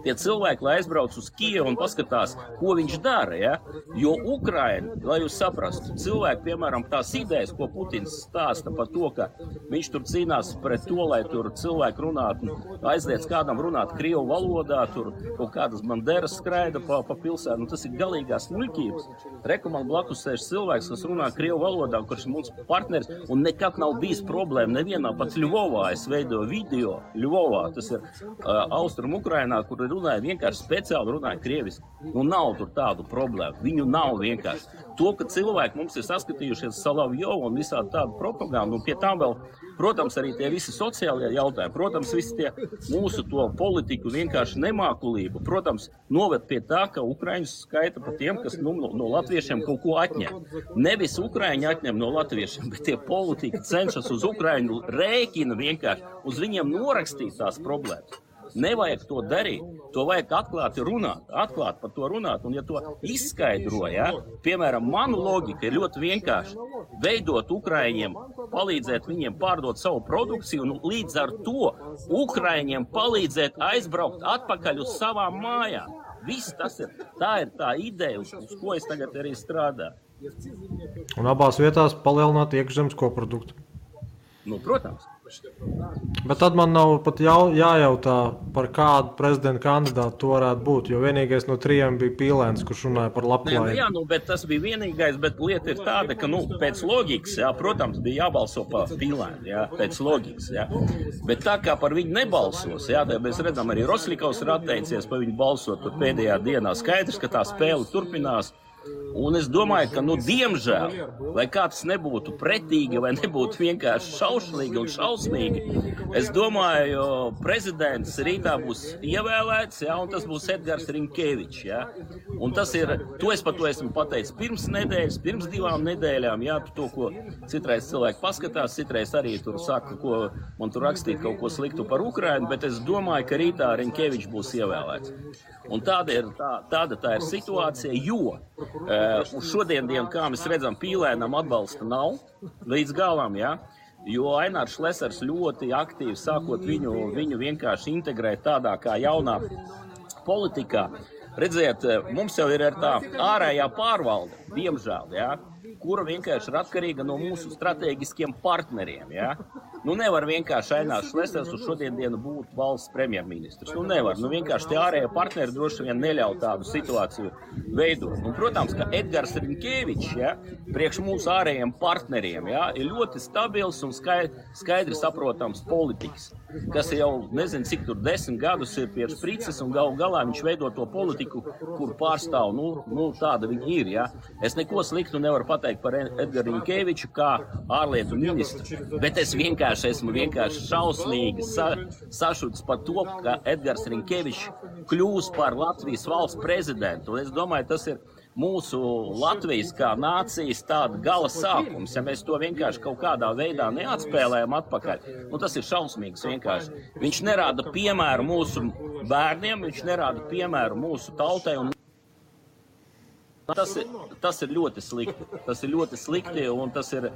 tie cilvēki, lai aizbrauc uz Kijevu un paskatās, ko viņš dara, ja, jo Ukraina, lai jūs saprastu, cilvēki, piemēram, tās idejas, ko Putins stāsta par to, ka viņš tur cīnās pret to, lai tur cilvēki runātu, aizliedz kādam runāt krievu valodā, tur kaut kādas banderas skraida pa pilsētu, tas ir galīgās muļķības. Reku man blakus sēž cilvēks, kas runā krievu valodā, kurš ir mums partneris, un nekad nav bijis problēma nevienā, pat Ļuvovā es veidoju video, Ļuvovā, tas ir Austrum Ukrainā, kur runāja vienkārši speciāli runāja krieviski. Nav tur tādu problēmu, viņu nav vienkārši. To, ka cilvēki mums ir saskatījušies Salavjovu un visādi tādu propagandu, un pie tām vēl, protams, arī tie visi sociālie jautājumi, protams, visi tie mūsu to politiku vienkārši nemākulību, protams, noved pie tā, ka Ukraiņus skaita pa tiem, kas no latviešiem kaut ko atņem. Nevis Ukraiņi atņem no latviešiem, bet tie politika cenšas uz Ukraiņu rēķina vienkārši, uz viņiem norakstīt tās problēmas. Nevajag to darīt, to vajag atklāt par to runāt, un ja to izskaidro, ja, piemēram, manu logika ir ļoti vienkārši, veidot Ukraiņiem, palīdzēt viņiem pārdot savu produkciju, un līdz ar to Ukraiņiem palīdzēt aizbraukt atpakaļ uz savām mājām. Viss tas ir, tā ir tā ideja, uz ko es tagad arī strādāju. Un abās vietās palielināt iekšzemes koproduktu. Protams. Bet tad man nav pat jājautā, par kādu prezidenta kandidātu to varētu būt, jo vienīgais no 3 bija Pīlēns, kurš runāja par labklājību. Jā, bet tas bija vienīgais, bet lieta ir tāda, ka, pēc loģikas, jā, protams, bija jābalso par Pīlēnu, jā, pēc loģikas, jā. Bet tā kā par viņu nebalsos, jā, tad mēs redzam, arī Rosļikovs ir atteicies par viņu balsot, tur pēdējā dienā skaidrs, ka tā spēle turpinās. Un es domāju, ka, diemžēl, lai kāds nebūtu pretīgi vai nebūtu vienkārši šaušalīgi un šausmīgi, es domāju, prezidents rītā būs ievēlēts, ja, un tas būs Edgars Rinkevičs. Ja. Un tas ir, es par to esmu pateicis pirms 2 nedēļām, ja, to, ko citreiz cilvēki paskatās, citreiz arī tur saka, ko man tur rakstīt kaut ko sliktu par Ukrainu, bet es domāju, ka rītā Rinkevičs būs ievēlēts. Un tāda ir situācija, jo uz šodien dienu, kā mēs redzam, Pīlēnam atbalsta nav līdz galam, ja? Jo Ainārs Šlesers ļoti aktīvi sākot viņu vienkārši integrēt tādā kā jaunā politikā. Redziet, mums jau ir tā ārējā pārvalde, diemžēl, ja? kura vienkārši ir atkarīga no mūsu strateģiskiem partneriem, ja? Nu, nevar vienkārši Ainās Šlesers uz šodienu būt valsts premjerministrs. Nu, nevar. Nu, vienkārši tie ārējie partneri droši vien neļauj tādu situāciju veidot. Un, protams, ka Edgars Riņkevičs, ja, priekš mūsu ārējiem partneriem, ja, ir ļoti stabils un skaidri saprotams politikas, kas jau, nezinu, cik tur 10 gadus ir pie sprices, un galā viņš veido to politiku, kur pārstāv, nu tāda viņa ir, ja. Es neko sliktu nevaru pateikt par Edgaru Riņkeviču kā ārlietu ministru, bet es esmu šausmīgi sašuts par to, ka Edgars Riņkevičs kļūs par Latvijas valsts prezidentu. Es domāju, tas ir mūsu Latvijas kā nācijas tāda gala sākums. Ja mēs to vienkārši kaut kādā veidā neatspēlējam atpakaļ, nu tas ir šausmīgs vienkārši. Viņš nerāda piemēru mūsu bērniem, viņš nerāda piemēru mūsu tautai. Un tas ir ļoti slikti. Tas ir ļoti slikti un tas ir,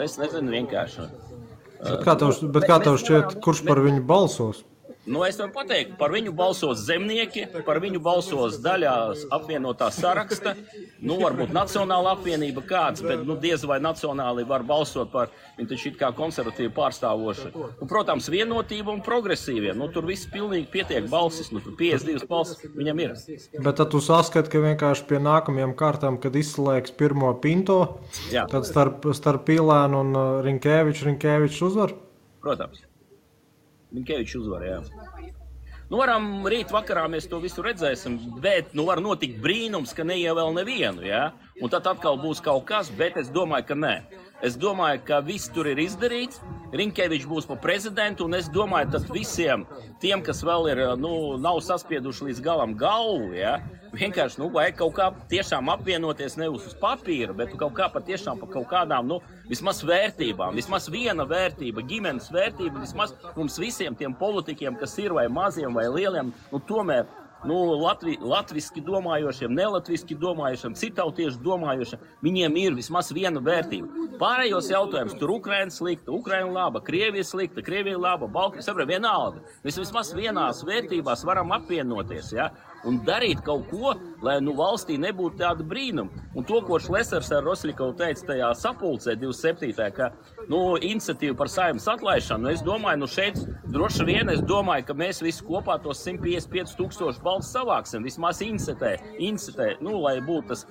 es nezinu, vienkārši. Bet kā tev šķiet, kurš par viņu balsos? Nu, es varu pateikt, par viņu balsos zemnieki, par viņu balsos daļā apvienotā saraksta, nu, varbūt Nacionāla apvienība kāds, bet, nu, diez vai nacionāli var balsot par, viņi taču it kā konservatīvi pārstāvoši. Un, protams, vienotība un progresīvie, nu, tur viss pilnīgi pietiek balsis, nu, tur 52 balsis viņam ir. Bet tad tu saskati, ka vienkārši pie nākamajām kārtām, kad izslēgs pirmo Pinto, jā, tad starp Pīlēnu un Riņkevičs uzvar? Protams. Riņkevičs uzvar, jā. Nu, varam rīt vakarā mēs to visu redzēsim, bet, nu, var notikt brīnums, ka neievēl nevienu, jā. Un tad atkal būs kaut kas, bet es domāju, ka nē. Es domāju, ka viss tur ir izdarīts, Riņkevičs būs par prezidentu, un es domāju, tad visiem tiem, kas vēl ir, nu, nav saspieduši līdz galam galvu, ja, vienkārši, nu, vajag kaut kā tiešām apvienoties nevis uz papīra, bet kaut kā patiešām par kaut kādām, nu, vismaz vērtībām, vismaz viena vērtība, ģimenes vērtība, vismaz mums visiem tiem politikiem, kas ir vai maziem vai lieliem, nu, tomēr, nu, latviski domājošiem, nelatviski domājošiem, citautieši domājošiem, viņiem ir vismaz viena vērtība. Pārējos jautājums, tur Ukraina slikta, Ukraina laba, Krievija slikta, Krievija laba, Baltkrievija, saprot, vienalga. Mēs vismaz vienās vērtībās varam apvienoties, ja, un darīt kaut ko, lai, nu, valstī nebūtu tāda brīnuma. Un to, ko Šlesers ar Rosļikovu teica tajā sapulcē 27. ka, nu, iniciatīva par Saeimas atlaišanu, es domāju, nu, šeit droši vien, es domāju, ka mēs visi kopā tos 155 000 balsis savāksim, vismaz incitē, nu, lai būtu tas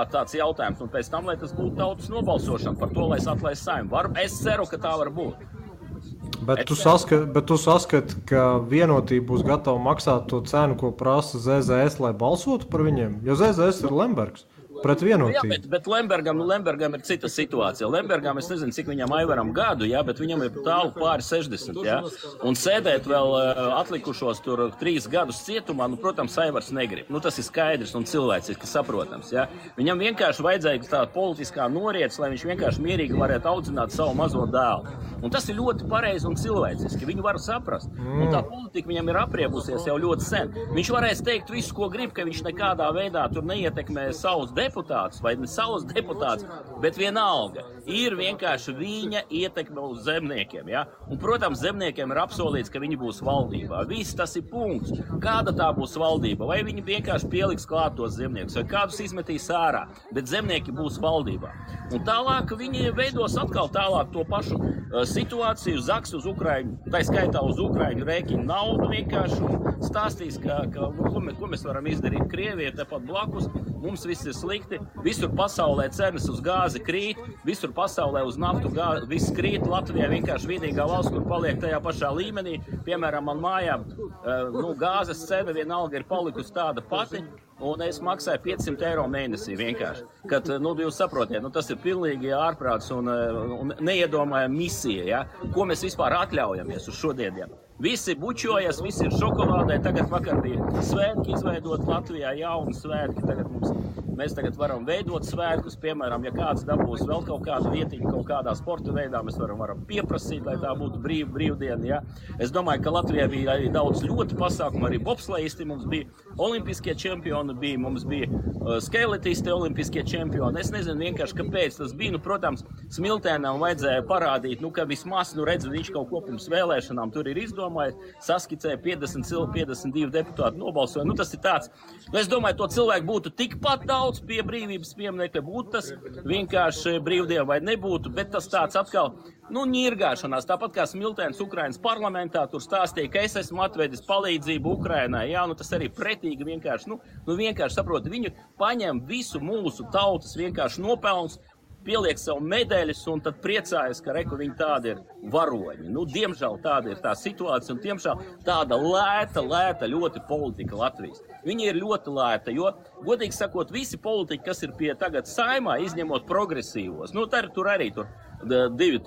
tāds jautājums, un pēc tam, lai tas būtu tautas nobalsošana par to, lai es atlaistu Saimu. Es ceru, ka tā var būt. Bet tu saskati, ka vienotība būs gatava maksāt to cenu, ko prasa ZZS, lai balsotu par viņiem? Jo ZZS ir Lembergs. Pret vienotību. Jā, bet Lembergam ir cita situācija. Lembergam, es nezinu, cik viņam Aivaram gadu, jā, bet viņam ir tālu pāri 60, jā. Un sēdēt vēl atlikušos tur 3 gadus cietumā, nu, protams, Aivars negrib. Nu, tas ir skaidrs un cilvēciski saprotams, jā. Viņam vienkārši vajadzēja tāda politiskā noriets, lai viņš vienkārši mierīgi varētu audzināt savu mazo dēlu. Un tas ir ļoti pareizi un cilvēciski. Viņu var saprast. Un tā politika viņam ir apriebusies jau ļoti sen. Viņš varēs teikt visu, ko grib, ka viņš nekādā veidā tur neietekmē savus deputātus vai ne savus deputātus, bet vienalga ir vienkārši viņa ietekme uz zemniekiem, ja? Un, protams, zemniekiem ir apsolīts, ka viņi būs valdībā. Viss tas ir punkts. Kāda tā būs valdība? Vai viņi vienkārši pieliks klāt tos zemniekus, vai kādus izmetīs ārā, bet zemnieki būs valdībā. Un tālāk viņi veidos atkal tālāk to pašu situāciju, zaks uz Ukraiņu, tā skaitā uz Ukraiņu rēķinu naudu vienkārši un stāstīs, ko mēs varam izdarīt. Krievija ir tepat blakus, mums viss ir slikti, visur pasaulē cenas uz gāzi krīt, visur pasaulē uz naftu viss krīt, Latvijā vienkārši vienīgā valsts, kur paliek tajā pašā līmenī, piemēram, man mājā, nu, gāzes cena vienalga ir palikusi tāda pati, un es maksāju 500 eiro mēnesī vienkārši. Kad, nu, jūs saprotiet, nu, tas ir pilnīgi ārprāts un neiedomājama misija, ja? Ko mēs vispār atļaujamies uz šodieniem. Visi bučojas, visi ir šokolādē, tagad vakar bija svētki izveidot Latvijā, jauni svētki, mēs tagad varam veidot svētkus, piemēram, ja kāds dabūs vēl kaut kādu vietiņu, kaut kādā sporta veidā, mēs varam pieprasīt, lai tā būtu brīvdiena, ja. Es domāju, ka Latvijā bija arī daudz ļoti pasākumu, arī bobslejisti, mums bija olimpiskie čempioni, mums bija skeletisti olimpiskie čempioni. Es nezinu vienkārši, kāpēc tas bija, nu, protams, Smiltēnam vajadzēja parādīt, nu, ka vismaz, nu, redz, viņš kaut ko pirms vēlēšanām tur ir izdomājis, saskicēja 52 deputāti nobalsoja. Nu, tas ir tāds, nu, es domāju, to cilvēku būtu tikpat daudz brauc pie brīvības pieminekļa, būtu tas vienkārši brīvdiena vai nebūtu, bet tas tāds atkal, ņirgāšanās, tāpat kā Smiltēns Ukrainas parlamentā, tur stāstīja, ka es esmu atvedis palīdzību Ukrainai, tas arī pretīgi vienkārši, vienkārši saprot, viņi paņem visu mūsu tautas vienkārši nopelns, pieliek savu medaļas un tad priecājas, ka viņi tādi ir varoņi. Diemžēl tāda ir tā situācija un diemžēl tāda lēta ļoti politika Latvijas. Viņa ir ļoti lēta, jo, godīgi sakot, visi politiķi, kas ir pie tagad Saeimā, izņemot progresīvos, tur arī divi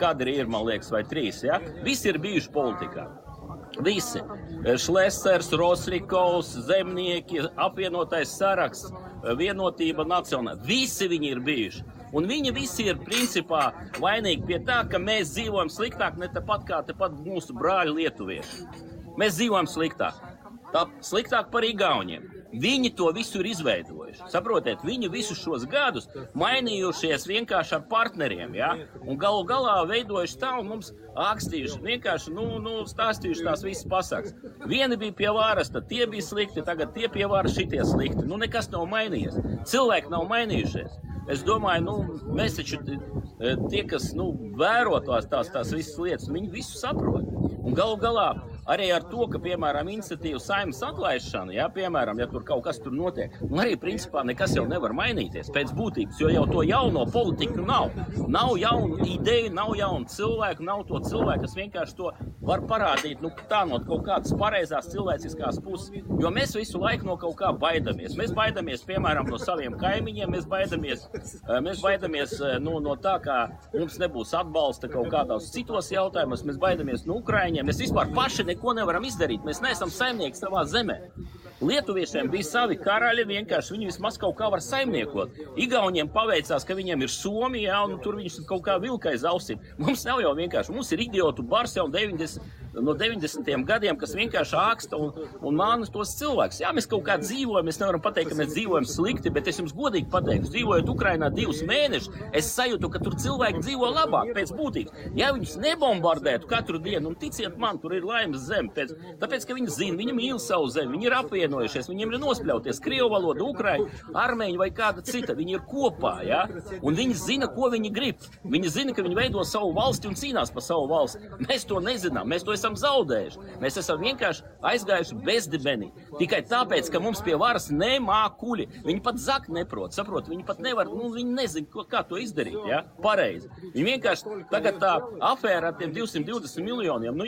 kadri ir, man liekas, vai trīs, ja? Visi ir bijuši politikā. Visi. Šlesers, Rosrikovs, Zemnieki, apvienotais saraksts, Vienotība nacionāla. Visi viņi ir bijuši. Un viņi visi ir principā vainīgi pie tā, ka mēs dzīvojam sliktāk ne tāpat kā tepat mūsu brāļi lietuvieši. Mēs dzīvojam sliktāk. Sliktāk par Igauniem. Viņi to visu ir izveidojuši. Saprotiet, viņi visus šos gadus mainījušies vienkārši ar partneriem, ja? Un galu galā veidojuši tā un mums ākstījuši, vienkārši, stāstījuši tās visas pasakas. Vieni bija pie varas, tad tie bija slikti, tagad tie pie varas šitie slikti. Nekas nav mainījies. Cilvēki nav mainījušies. Es domāju, mēs taču tie, kas, vēro tās visas lietas, viņi visu saprot. Un galu galā arī ar to, ka, piemēram, iniciatīva Saeimas atlaišana, ja, piemēram, ja tur kaut kas tur notiek, arī, principā, nekas jau nevar mainīties pēc būtības, jo jau to jauno politiku nav. Nav jaunu ideju, nav jaunu cilvēku, nav to cilvēku, kas vienkārši to var parādīt, tā no kaut kādas pareizās cilvēciskās puses, jo mēs visu laiku no kaut kā baidamies. Mēs baidamies, piemēram, no saviem kaimiņiem, mēs baidamies no tā, kā mums nebūs atbalsta kaut kādās citos jautājumos, mēs baidamies no Ukraiņiem, mēs vispār paši neko nevaram izdarīt, mēs neesam saimnieki savā zemē. Lietuviešiem bija savi karaļi, vienkārši viņi vismaz kaut kā var saimniekot. Igauniem paveicās, ka viņiem ir Somija, un tur viņš kaut kā vilka aiz ausīm. Mums nav jau vienkārši, mums ir idiotu bars jau no 90. gadiem, kas vienkārši āksta un māna tos cilvēkus. Jā, mēs kaut kā dzīvojam, mēs nevaram pateikt, ka mēs dzīvojam slikti, bet es jums godīgi pateikšu, dzīvojot Ukrainā 2 mēnešus, es sajūtu, ka tur cilvēki dzīvo labāk pēc būtības. Ja viņus nebombardētu katru dienu, un ticiet man, tur ir laimes zeme, tāpēc, ka viņi zina, viņi mīl savu zemi, viņi ir apvienojušies, viņiem ir nospļauties krievu valoda, ukraiņu, armēņu vai kāda cita, viņi ir kopā, ja? Un viņi zina, ko viņi grib. Viņi zina, ka viņi veido savu valsti un cīnās par savu valsti. Mēs to nezinām, mēs to esam zaudējuši. Mēs esam vienkārši aizgājuši bezdibenī. Tikai tāpēc, ka mums pie varas nemākuļi. Viņi pat zakt neprot, saprot, viņi pat nevar, viņi nezina, kā to izdarīt, ja? Pareizi. Viņi vienkārši tagad tā afēra ar tiem 220 miljoniem,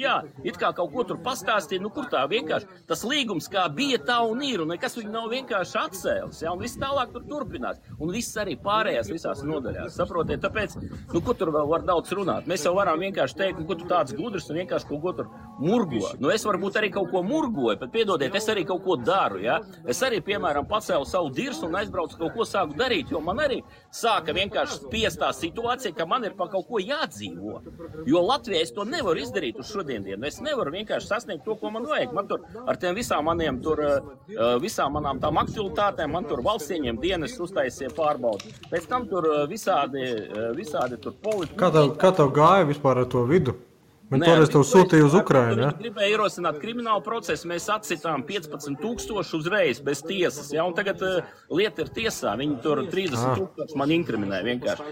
it kā kaut ko tur pastāstīja, kur tā vienkārši tas līgums kā bija tā un ir, un nekas viņi nav vienkārši atcēlis, ja? Un viss tālāk tur turpinās. Un viss arī pārējās visās nodaļās, saprotiet, tāpēc, ko tur vēl var daudz runāt. Mēs jau varam vienkārši teikt, ko tu tāds gudrs un vienkārši kaut ko tur murgo. Es varbūt arī kaut ko murgoju, bet piedodiet, es arī kaut ko daru, ja? Es arī, piemēram, pacēlu savu dirsu un aizbraucu kaut ko sāku darīt, jo man arī sāka vienkārši spiest tā situācija, ka man ir pa kaut ko jādzīvo. Jo Latvijā es to nevaru izdarīt uz šodiendienu. Es nevaru vienkārši sasniegt to, ko man vajag. Man tur ar tiem visām manām tām aktualitātēm, man tur valsts ieņem dienas uztaisīja pārbaudi. Pēc tam tur visādi tur politika. Kā tev gāja vispār ar to vidu? Viņi toreiz tev sūtīja uz Ukrainu, ja? Viņi gribēja ierosināt kriminālu procesu, mēs atsitām 15,000 uzreiz bez tiesas, ja? Un tagad lieta ir tiesā, viņi tur 30,000 man inkriminēja vienkārši.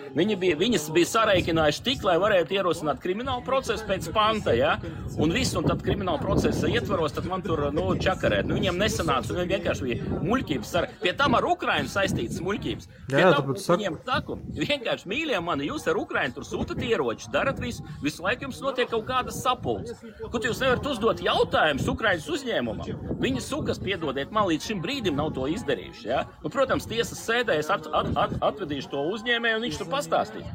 Viņas bija sareikinājuši tik, lai varētu ierosināt kriminālu procesu pēc panta, ja? Un visu, un tad kriminālu procesa ietvaros, tad man tur, čakarēt. Viņiem nesanāca, un vienkārši bija muļķības. Pie tam ar Ukrainu saistītas muļķības. Pie tam viņiem saku, vienkārši mīļie mani, jūs ar Ukrainu tur sūtat ieroči, darat visu laiku jums notiek kaut kādas sapulces. Kur jūs nevarat uzdot jautājumus Ukrainas uzņēmumam? Viņi sukas, piedodiet, man līdz šim brīdim nav to izdarījuši, ja? Un, protams, tiesas sēdē es atvedīšu to uzņēmēju, un viņš tur pastāstīs.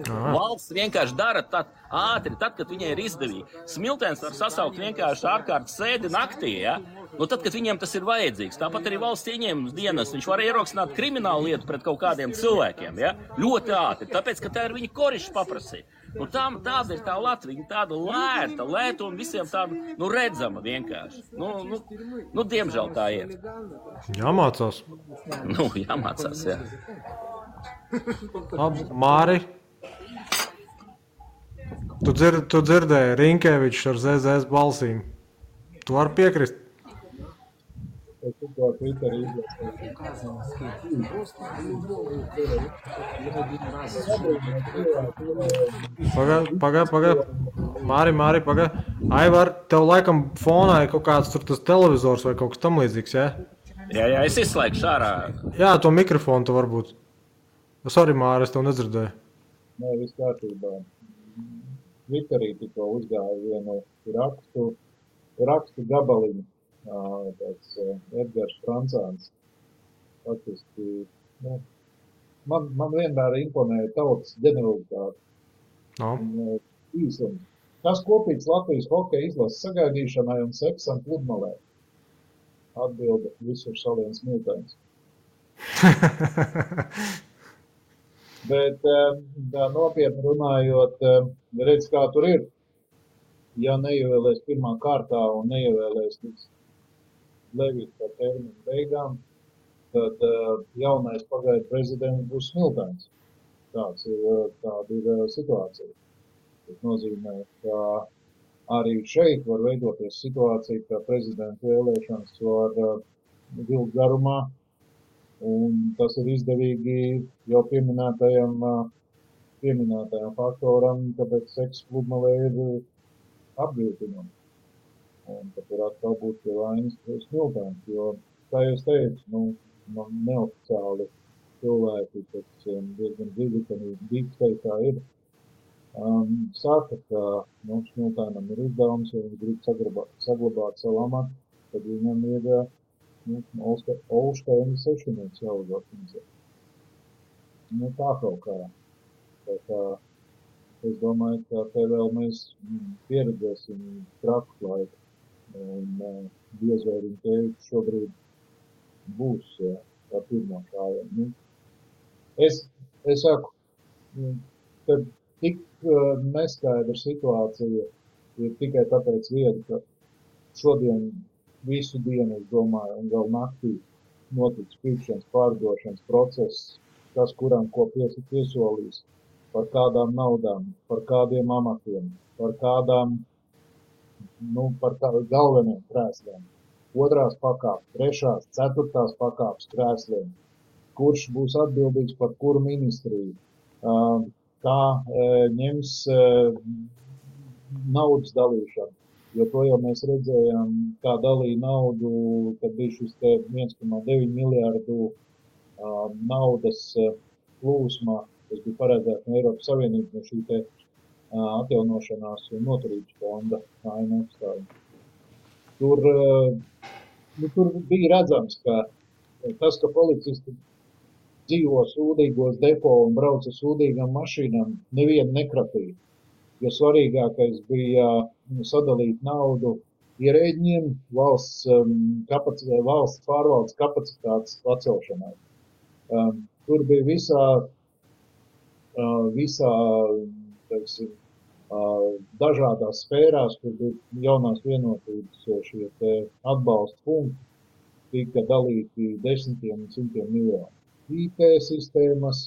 Valsts vienkāri dara ātri, tad, kad viņai ir izdevīgi. Smiltēns var sasaukt vienkārši ārkārtas sēdi naktī, ja? Tad, kad viņiem tas ir vajadzīgs. Tāpat arī valsts ieņēmums dienas. Viņš var ierosināt kriminālu lietu pret kaut kādiem cilvēkiem, ja? Ļoti ātri, tāpēc, ka tā ir viņa korišs paprasīja. Tāda ir tā Latvija, tāda lēta un visiem tāda, redzama vienkārši. Diemžēl tā ir. Jāmācās. Jāmācās, jā. Labi, Māri, tu dzirdēji Rinkevičs ar ZZS balsīm. Tu vari piekrist? Es tikko Twitterī Pagai. Māri, pagai. Aivar, tev laikam fonā ir kaut kāds tur tas televizors vai kaut kas tam līdzīgs, jā? Jā, es izslēgšu ārā. Jā, to mikrofonu tu varbūt. Sorry, Māri, es tev nedzirdēju. Nē, viss kārtībā. Twitterī tikko uzgāja vienu rakstu gabaliņu. Tāds Edgars Francāns. Faktiski, man vienmēr imponēja tautas ģeneralitāte. No. Īsums. Kas kopīgs Latvijas hokeja izlases sagaidīšanai un seksam pludmalē? Atbilde visur saliens Miltēns. Bet nopietni runājot, redz, kā tur ir. Ja neievēlēs pirmā kārtā un neievēlēs līdz Levita par terminu beigām, tad jaunais pagaidu prezidents būs Miltēns. Tāda ir situācija. Tas nozīmē, ka arī šeit var veidoties situācija, ka prezidenta vēlēšanas var vilkt garumā, un tas ir izdevīgi jau pieminētajam faktoram, tāpēc seks pludmalē ir apgrūtinumi. Un tad var atkal būt pie vainas Miltēns, jo, kā jūs teicu, neoficiāli cilvēki, kas diezgan dziļi, ka dīpsteitā ir, saka, ka Miltēnam ir uzdevums, ja viņš grib saglabāt savu amatu, tad viņam ir Olšteina sešinieks jāuzorganizē. Tā kaut kā. Es domāju, ka te vēl mēs pieredzēsim traku laiku. Un diez vai viņa teikt šobrīd būs ar pirmo šāvienu. Es saku, ka tik neskaidra situācija ir tikai tāpēc vieta, ka šodien visu dienu, es domāju, un vēl naktī notiks pirkšanas pārdošanas process, kas kuram ko piesolīs, par kādām naudām, par kādiem amatiem, par kādām par galveniem krēsliem, 2. pakāpes, 3., 4. pakāpes krēsliem, kurš būs atbildīgs par kuru ministriju, kā ņems naudas dalīšanu, jo to jau mēs redzējām, kā dalīja naudu, kad bija šis 1,9 miljārdu naudas plūsmā, kas bija paredzēts no Eiropas Savienības, no šī te atjaunošanās un noturības fonda ANF. Tur bija redzams, ka tas, ka policisti dzīvo sūdīgos depo un brauc ar sūdīgām mašīnām, nevienu nekrapīja. Jo svarīgākais bija sadalīt naudu ierēģiem valsts pārvaldes kapacitātes pacelšanai. Tur bija visā teiksim, dažādās sfērās, kur bija jaunās vienotības šie te atbalsta punkti, tika dalīti desmitiem un simtiem miljonu. IT sistēmas,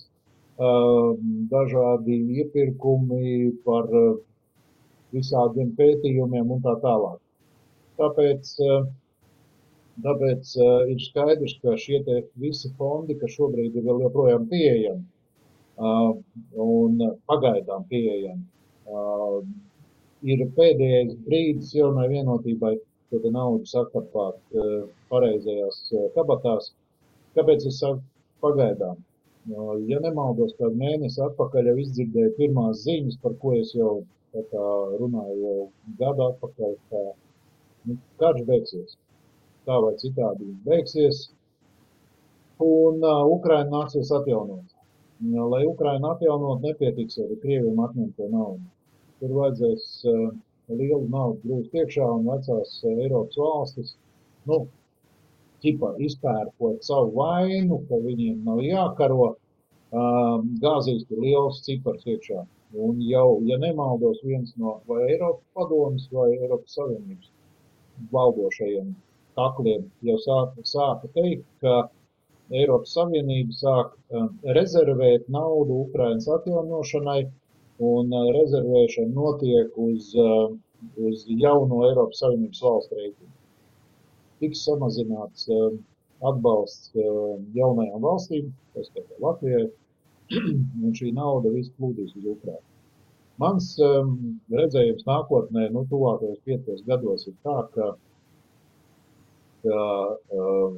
dažādi iepirkumi par visādiem pētījumiem un tā tālāk. Tāpēc ir skaidrs, ka šie te visi fondi, kas šobrīd ir vēl joprojām pieejami, un pagaidām pieejami, ir pēdējais brīdis jaunai vienotībai to naudu sakarpāt pareizajās kabatās. Kāpēc es saku pagaidām? Ja nemaldos, kādu mēnesi atpakaļ jau izdzirdēju pirmās ziņas, par ko es jau runāju jau gadu atpakaļ, ka karš beigsies. Tā vai citādi viņš beigsies, un Ukraina nāksies atjaunot. Lai Ukraina atjaunot, nepietiks arī Krieviem atņemt to naudu. Tur vajadzēs lielu naudu grūst iekšā un vecās Eiropas valstis, izpērkot savu vainu, ka viņiem nav jākaro, gāzīs tur liels cipars iekšā. Un jau, ja nemaldos, viens no vai Eiropas padomas vai Eiropas Savienības valdošajiem takliem jau sāka teikt, ka Eiropas Savienība sāk rezervēt naudu Ukrainas atjaunošanai, un rezervēšana notiek uz jauno Eiropas Savienības valstu rēķinu. tiks samazināts atbalsts jaunajām valstīm, tas kā Latvijai, un šī nauda viss plūdīs uz Ukrainu. Mans redzējums nākotnē, tuvākajos 5 gados ir tā, ka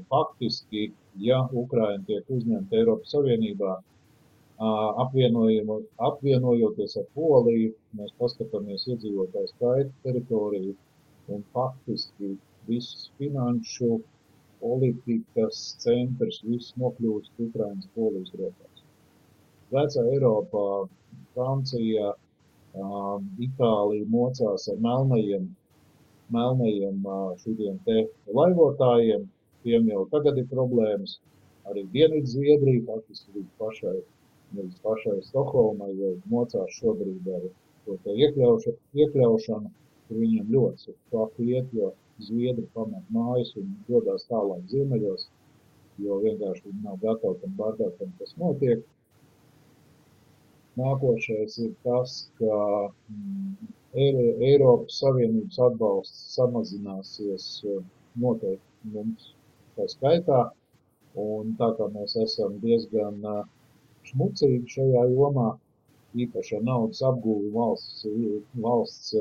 faktiski, ja Ukraina tiek uzņemta Eiropas Savienībā, apvienojoties ar Poliju, mēs paskatāmies iedzīvotāju skaitu, teritoriju un faktiski viss finanšu, politikas centrs, viss nokļūst Ukrainas Polijas rokās. Vecā Eiropā, Francija, Itālija mocās ar melnajiem šitiem te laivotājiem, tiem jau tagad ir problēmas, arī Dienvidu Zviedrija, faktiski līdz pašai Stokholmai jau mocās šobrīd ar to te iekļaušanu, kur viņiem ļoti sāku iet, jo Zviedri pamet mājas un dodās tālāk ziemeļos, jo vienkārši viņi nav gatavi tam bardākam, kas notiek. Nākošais ir tas, ka Eiropas Savienības atbalsts samazināsies noteikti mums tā skaitā, un tā kā mēs esam diezgan šmucīgi šajā jomā, īpaši ar naudas apgūvi valsts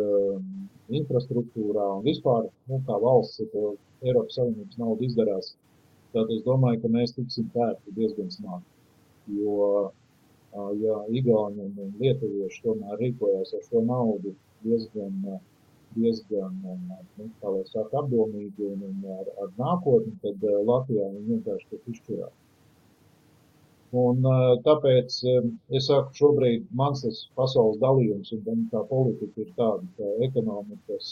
infrastruktūrā un vispār, kā valsts Eiropas Savienības naudu izdarās, tad es domāju, ka mēs tiksim pērti diezgan smagi, jo ja Igauni un lietuvieši tomēr rīkojās ar šo naudu diezgan kā lai saka, apdomīgi un ar nākotni, tad Latvijā viņi vienkārši tiek izšķirāti. Un tāpēc es saku, šobrīd mans tas pasaules dalījums un tā politika ir tāda, ka ekonomikas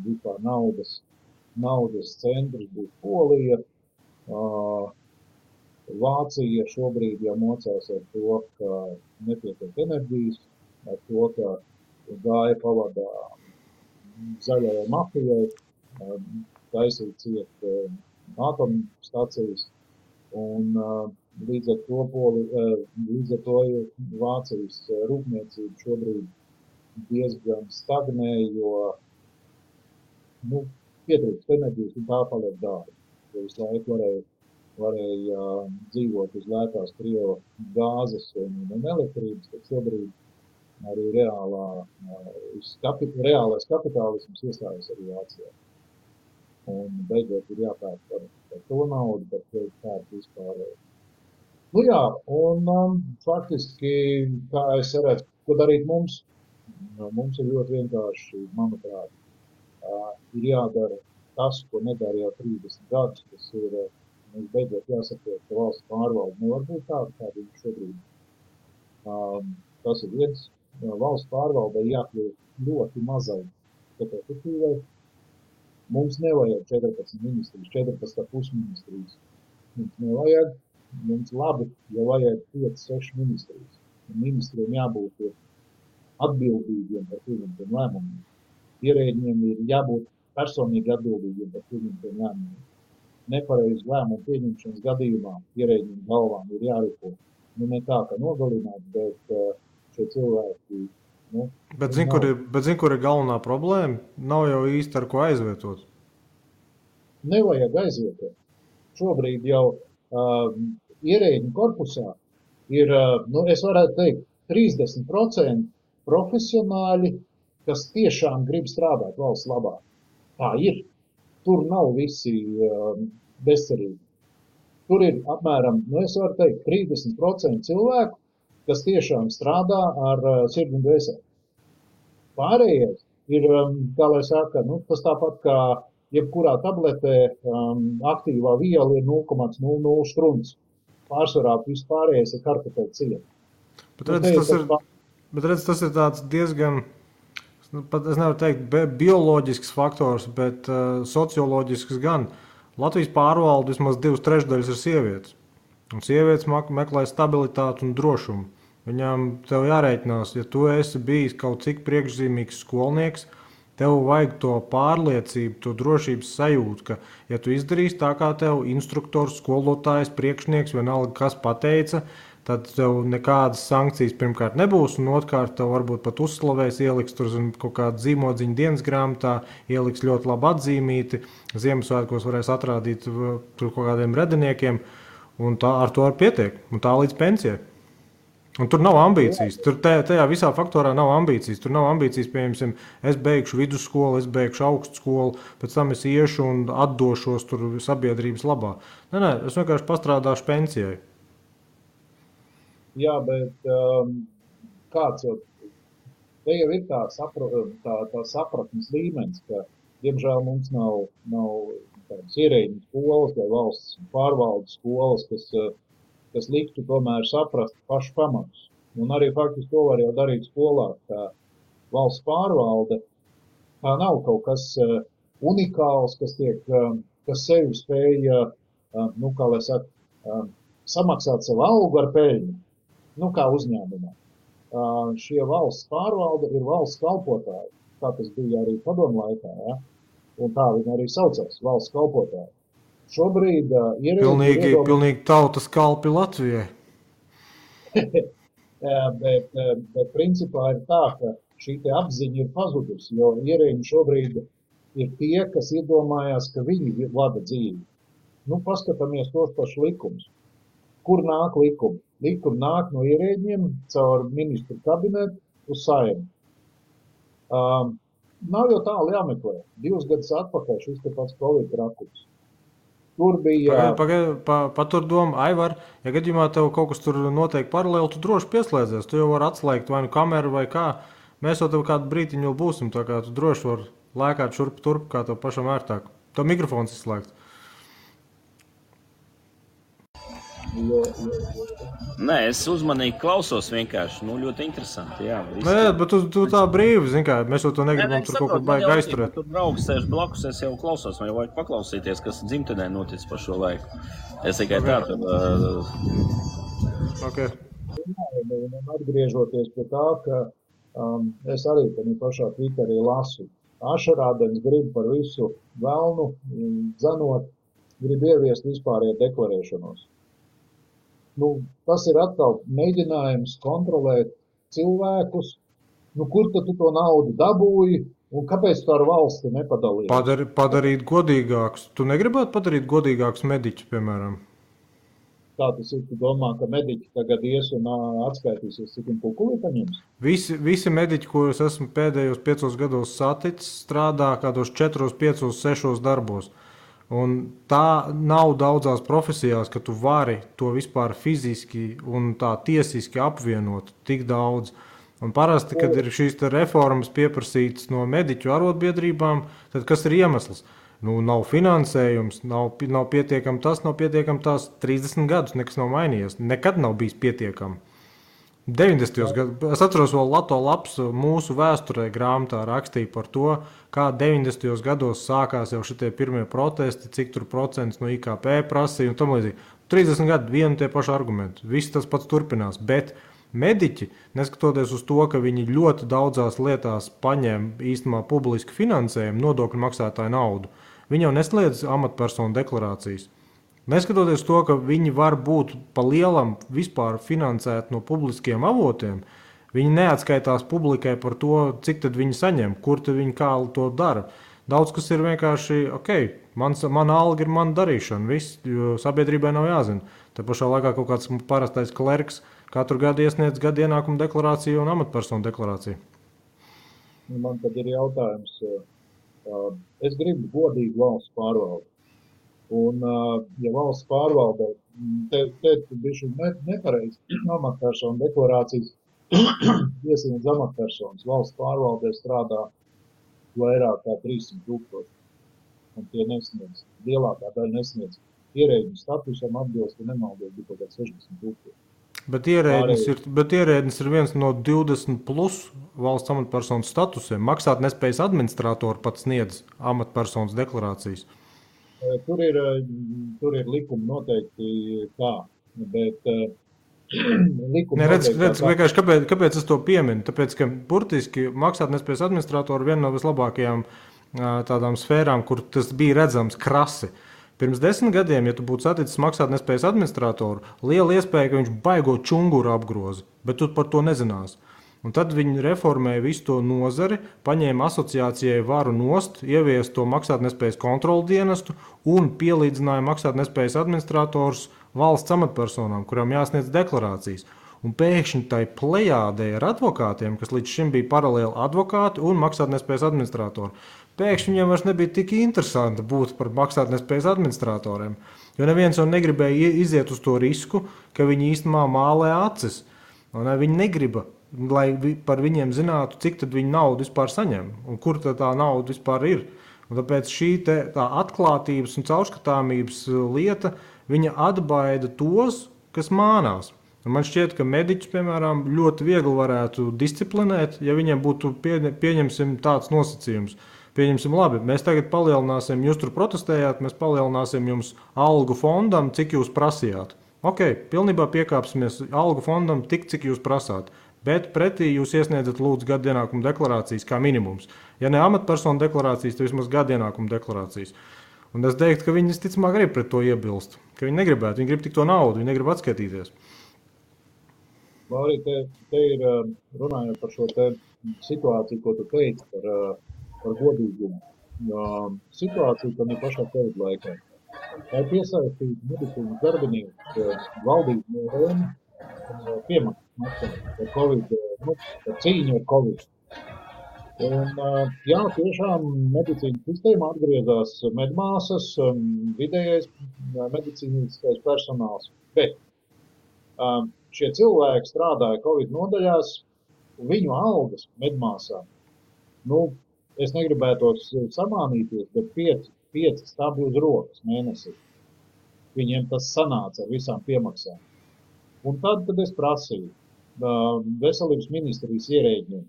vispār naudas centrs būs Polija. Vācija šobrīd jau mocās ar to, ka nepietiek enerģijas, ar to, ka gāja pavadā zaļajai mafijai, taisīt ciet atomstacijas, un līdz ar to Vācijas rūpniecība šobrīd diezgan stagnē, jo pietrūkst enerģijas un tā paliek dārga. Jo visu laiku varēja dzīvot uz lētās Krievu gāzes un elektrības, tad šobrīd arī reālais kapitālisms iestājas arī Vācijā. Un beidzot ir jāpērk par to naudu, par to pērk vispār. Un faktiski, kā es redzu, ko darīt mums? Mums ir ļoti vienkārši, manuprāt, ir jādara tas, ko nedara jau 30 gadus, tas ir, mums beidzot jāsaprot, ka valsts pārvalde nevar būt tāda, kāda ir šobrīd. Tas ir viens. Valsts pārvaldei jākļūt ļoti mazai, bet efektīvai. Mums nevajag 14 ministrijas, 14,5 ministrijas. Mums nevajag, mums labi, ja vajag 5-6 ministrijas. Un ministriem jābūt atbildīgiem par pieņemtiem lēmumiem. Ierēģiem ir jābūt personīgi atbildīgiem par pieņemtiem lēmumiem. Nepareizi lēmumu pieņemšanas gadījumā ierēģiem galvām ir jārīko. Ne tā, ka nogalināt, bet šie cilvēki. Bet zin, kur ir galvenā problēma? Nav jau īsti ar ko aizvietot. Nevajag aizvietot. Šobrīd jau ierēģu korpusā ir, es varētu teikt, 30% profesionāļi, kas tiešām grib strādāt valsts labā. Tā ir. Tur nav visi bezcerīgi. Tur ir apmēram, es varu teikt, 30% cilvēku, kas tiešām strādā ar sirdi un dvēseli. Pārējais ir, kā lai saka, tas tāpat kā jebkurā tabletē aktīvā viela ir 0,00 strunts. Pārsvarā viss pārējais ir kartupeļu cieta. Bet redz, tas ir tāds diezgan, pat es nevaru teikt bioloģisks faktors, bet socioloģisks gan. Latvijas pārvalde vismaz 2/3 ir sievietes. Un sievietes meklē stabilitāti un drošumu. Viņām tev jārēķinās, ja tu esi bijis kaut cik priekšzīmīgs skolnieks, tev vajag to pārliecību, to drošības sajūtu, ka, ja tu izdarīsi tā, kā tev instruktors, skolotājs, priekšnieks, vienalga kas pateica, tad tev nekādas sankcijas pirmkārt nebūs, un otrkārt tev varbūt pat uzslavēs, ieliks tur kaut kādu zīmodziņu dienas grāmatā, ieliks ļoti labi atzīmīti, Ziemassvētkos varēs atrādīt tur kaut kādiem rediniekiem, un tā ar to pietiek, un tā līdz pensijai. Un tur nav ambīcijas. Tur tajā visā faktorā nav ambīcijas. Tur nav ambīcijas, piemēram, es beigšu vidusskolu, es beigšu augstskolu, pēc tam es iešu un atdošos tur sabiedrības labā. Nē, es vienkārši pastrādāšu pensijai. Jā, bet kāds jau, te jau ir tā sapratnes līmenis, ka, diemžēl, mums nav tādas ierēģiņu skolas vai valsts pārvaldes skolas, kas liktu tomēr saprast pašu pamatus. Un arī faktiski to var jau darīt skolā, ka valsts pārvalde tā nav kaut kas unikāls, kas sevi spēja, kā lai saka, samaksāt savu algu ar peļņu, kā uzņēmumā. Šie valsts pārvalde ir valsts kalpotāji, kā tas bija arī padomu laikā, ja? Un tā viņi arī saucās, valsts kalpotāji. Šobrīd pilnīgi tautas kalpi Latvijai. bet principā ir tā, ka šī te apziņa ir pazudusi, jo ierēģi šobrīd ir tie, kas iedomājās, ka viņi vada dzīvi. Paskatāmies tos pašus likumus. Kur nāk likumi? Likumi nāk no ierēģiem caur ministru kabinetu uz Saeimu. Nav jau tālu jāmeklē. 2 gadus atpakaļ šis te pats Covid trakums. Tur bija... Patur domu, Aivar, ja gadījumā tev kaut kas tur noteikti paralēli, tu droši pieslēdzies. Tu jau vari atslēgt vai nu kameru vai kā. Mēs jau tev kādu brītiņu būsim, tā kā tu droši vari lēkāt šurp turp, kā tev pašam ērtāk. Tev mikrofons izslēgts. Nē, es uzmanīgi klausos vienkārši. Ļoti interesanti, jā. Nē, bet tu tā brīvi, zini kā, mēs jau to negribam tur kaut ko baigi aizturēt. Tur draugs sēž blakus, es jau klausos, man jau vajag paklausīties, kas dzimtenē notic pa šo laiku. Es tikai tā tad... Okay. Atgriežoties pie tā, ka es arī pašā Twitterī lasu. Ašarādens grib par visu velnu, dzenot, grib ieviest vispārējo deklarēšanos. Tas ir atkal mēģinājums kontrolēt cilvēkus, kur tad tu to naudu dabūji un kāpēc tu ar valsti nepadalīji? Padarīt godīgākus. Tu negribētu padarīt godīgākus mediķus, piemēram? Tā tas ir, tu domā, ka mediķi tagad ies un atskaitīsies, cik pulkulī paņems? Visi mediķi, ko es esmu pēdējos 5 gados saticis, strādā kādos 4, 5, 6 darbos. Un tā nav daudzās profesijās, ka tu vari to vispār fiziski un tā tiesiski apvienot tik daudz. Un parasti, kad ir šīs reformas pieprasītas no mediķu arotbiedrībām, tad kas ir iemesls? Nav finansējums, nav pietiekami tas, nav pietiekami tās 30 gadus, nekas nav mainījies. Nekad nav bijis pietiekami. 90. gados, es atceros vēl Lato Laps mūsu vēsturē grāmatā rakstīja par to, kā 90. gados sākās jau šitie pirmie protesti, cik tur procents no IKP prasīja un tam līdzīgi. 30 gadu vienu tie paši argumenti, viss tas pats turpinās, bet mediķi, neskatoties uz to, ka viņi ļoti daudzās lietās paņem īstenībā publisku finansējumu, nodokļu maksātāju naudu, viņi jau nesliedz amatpersonu deklarācijas. Neskatoties to, ka viņi var būt pa lielam vispār finansēt no publiskiem avotiem, viņi neatskaitās publikai par to, cik tad viņi saņem, kur tad viņi kā to dara. Daudz kas ir vienkārši, mana alga ir mana darīšana, viss, jo sabiedrībai nav jāzina. Te pašā laikā kaut kāds parastais klerks katru gadu iesniedz gadu ienākumu deklarāciju un amatpersonu deklarāciju. Man tad ir jautājums, es gribu godīgu valsts pārvaldi. Un, ja valsts pārvaldē, te bišķi nepareizi amatpersonu deklarācijas iesniedz amatpersonas. Valsts pārvaldē strādā vairāk kā 300,000. Un tie nesniedz, lielākā daļa nesniedz. Ierēģu statusam atbilst, ja nemaldos, bija kaut kā 60,000. Bet ierēdnis ir viens no 20 plus valsts amatpersonu statusiem. Maksāt nespējas administratori pat sniedz amatpersonas deklarācijas. Tur ir likumi noteikti tā, bet likumi noteikti... Kāpēc es to pieminu? Tāpēc, ka burtiski maksātnespējas administratori viena no vislabākajām tādām sfērām, kur tas bija redzams krasi. Pirms 10 gadiem, ja tu būtu saticis maksātnespējas administratoru, liela iespēja, ka viņš baigo čunguru apgroza, bet tu par to nezinās. Un tad viņi reformēja visu to nozari, paņēma asociācijai varu nost, ievies to maksātnespējas kontrolu dienestu un pielīdzināja maksātnespējas administratorus valsts amatpersonām, kurām jāsniedz deklarācijas. Un pēkšņi tai plejādē ar advokātiem, kas līdz šim bija paralēli advokāti un maksātnespējas administratori, pēkšņi viņiem vairs nebija tik interesanti būt par maksātnespējas administratoriem, jo neviens jau negribēja iziet uz to risku, ka viņi īstenībā mālē acis. Un viņi negriba, lai par viņiem zinātu, cik tad viņi naudu vispār saņem un kur tā nauda vispār ir. Un tāpēc šī tā atklātības un caurskatāmības lieta, viņa atbaida tos, kas mānās. Un man šķiet, ka mediķus, piemēram, ļoti viegli varētu disciplinēt, ja viņiem būtu pieņemsim tāds nosacījums. Pieņemsim, labi, mēs tagad palielināsim, jūs tur protestējāt, mēs palielināsim jums algu fondam, cik jūs prasījāt. Ok, pilnībā piekāpsimies algu fondam tik, cik jūs prasāt, bet pretī jūs iesniedzat lūdzu gadu ienākumu deklarācijas kā minimums. Ja ne amatpersonu deklarācijas, tad vismaz gadu ienākumu deklarācijas. Un es teiktu, ka viņi visticamāk grib pret to iebilst, ka viņi negribētu, viņi grib tik to naudu, viņi negrib atskaitīties. Arī te ir runājot par šo te situāciju, ko tu teici par godīgumu. Situācija, ka ne pašā COVID laikā. Tā ir piesaistīta medicīnas darbinieku valdību rēmu piemaksas par COVID, par cīņu ar COVID. Un, jā, tiešām medicīnas sistēma atgriezās medmāsas, vidējais medicīniskais personāls. Bet šie cilvēki strādāja COVID nodaļās, un viņu algas medmāsām, es negribētos samānīties, bet 5 stabli uz rokas mēnesī. Viņiem tas sanāca ar visām piemaksām. Un tad es prasīju veselības ministrijas ierēģiem,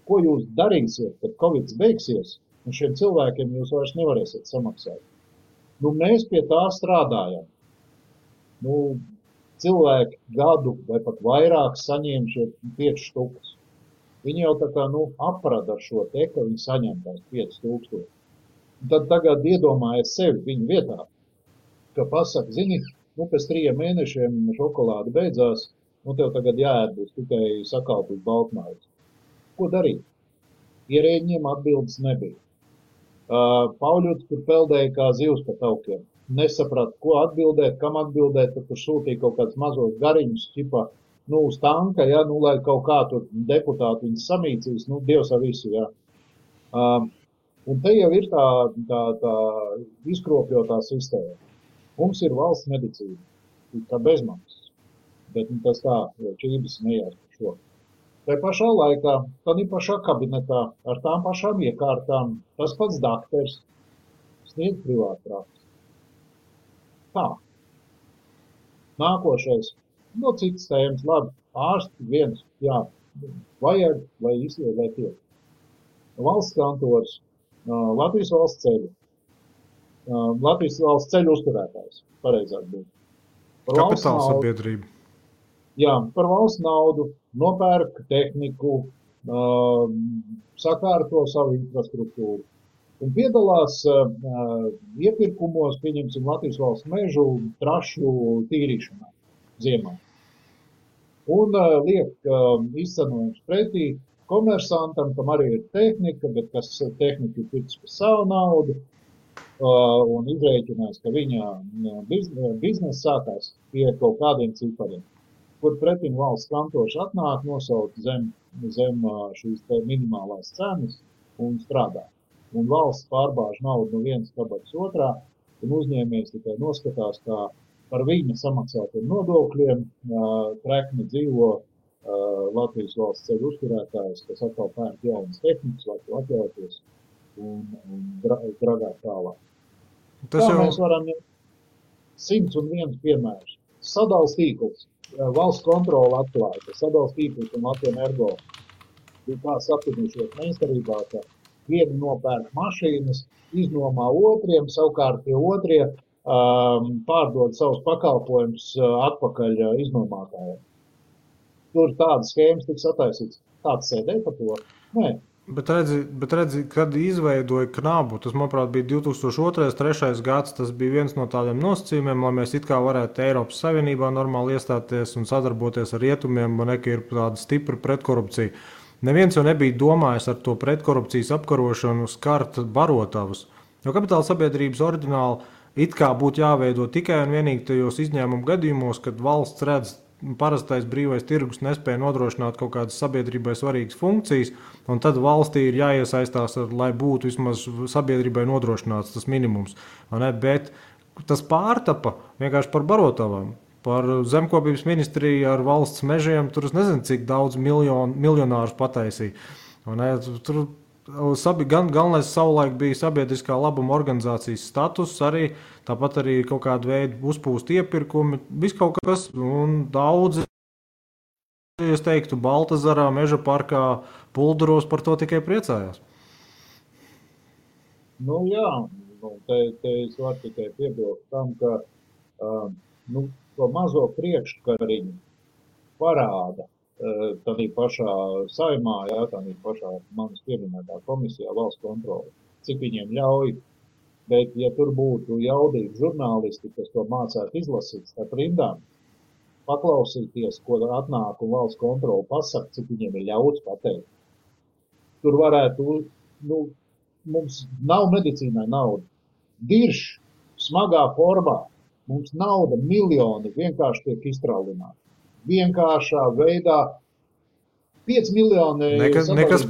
ko jūs darīsiet, kad Covid beigsies, un šiem cilvēkiem jūs vairs nevarēsiet samaksāt. Mēs pie tā strādājam. Cilvēki gadu vai pat vairāk saņēma šie 5 štukas. Viņi jau tā kā aprada ar šo te, ka viņi saņem tās 5000. Tad tagad iedomājies sevi viņu vietā, ka pasaka, zini, pēc 3 mēnešiem šokolāde beidzās, tev tagad jāēd būs tikai sakalpīt baltmaizi. Ko darīt? Ierēģiem atbildes nebija. Pauļuts tur peldēja kā zivs pa taukiem. Nesaprata, ko atbildēt, kam atbildēt, tad tur sūtīja kaut kāds mazos gariņus, ķipa, uz tanka, ja, lai kaut kā tur deputāti viņas samīcīs, Dievs ar visu, ja. Un te jau ir tā izkropļotā sistēma. Mums ir valsts medicīna, kā bezmaksas, bet tas tā, čības nejās par šo. Tā pašā laikā, tad ir pašā kabinetā, ar tām pašām iekārtām, tas pats dakters sniedz privātprātis. Tā. Nākošais, citas tēmas, labi, ārsti viens, jā, vajag, lai izliet, lai tiek. Valsts kantors, Latvijas valsts ceļu. Latvijas valsts ceļu uzturētājs, pareizāk būt. Kapitāla sabiedrība. Jā, par valsts naudu, nopērk tehniku, sakārto savu infrastruktūru. Un piedalās iepirkumos, pieņemsim, Latvijas valsts mežu trašu tīrīšanā ziemā. Un liek izcenojums pretī komersantam, kam arī ir tehnika, bet kas tehnika ir pircis par savu naudu, un izrēķinās, ka viņa biznesa sākās pie kaut kādiem cipariem, kur pretim valsts kantors atnāk, nosauc zem šīs minimālās cenas un strādā. Un valsts pārbāž naudu no vienas kabatas otrā, un uzņēmējs tikai noskatās, kā par viņa samaksātiem nodokļiem trekni dzīvo Latvijas valsts ceļu uzturētājs, kas atkal pērk jaunas tehnikas, lai to atļauties un dragāt tālāk. Mēs varam 101 piemērus. Sadals tīkls, valsts kontrola atklāja, ka sadals tīkls un Latvijas Energo bija tā sapirnušies meistarībā, ka vieni nopērk mašīnas, iznomā otriem, savukārt tie otrie pārdod savus pakalpojumus atpakaļ iznomātājiem. Tur tādas schēmas tiks attaisīts. Tāds sēdēja par to? Nē, Bet redzi, kad izveidoja Knabu, tas, manuprāt, bija 2002.-2003. gads, tas bija viens no tādiem nosacījumiem, lai mēs it kā varētu Eiropas Savienībā normāli iestāties un sadarboties ar rietumiem, man ka ir tāda stipra pretkorupcija. Neviens jau nebija domājis ar to pretkorupcijas apkarošanu skart barotavus, jo kapitāla sabiedrības oriģināli it kā būtu jāveido tikai un vienīgi tajos izņēmumu gadījumos, kad valsts redz, parastais brīvais tirgus nespēja nodrošināt kaut kādas sabiedrībai svarīgas funkcijas, un tad valstī ir jāiesaistās, lai būtu vismaz sabiedrībai nodrošināts tas minimums. Bet tas pārtapa vienkārši par barotavām, par zemkopības ministriju ar valsts mežiem, tur es nezinu, cik daudz miljonārus pataisīja. Tur galvenais savulaik bija sabiedriskā labuma organizācijas status, arī tāpat arī kaut kāda veida uzpūst iepirkumi, viss kaut kas, un daudzi, es teiktu, Baltazarā, Meža parkā, Pulduros par to tikai priecājās. Nu jā, te es varu tikai piebilst tam, ka to mazo priekškariņu parāda tādā pašā Saeimā, tādā pašā manas pieminētā komisijā valsts kontrole, cik viņiem ļauj. Bet, ja tur būtu jaudīgi žurnālisti, kas to mācētu izlasīt starp rindām, paklausīties, ko atnāk un valsts kontrole pasaka, cik viņiem ir ļauts pateikt. Tur varētu, mums nav medicīnai nauda. Dirš, smagā formā, mums nauda miljoni vienkārši tiek iztraulināti. Vienkāršā veidā 5 miljoni... Nekas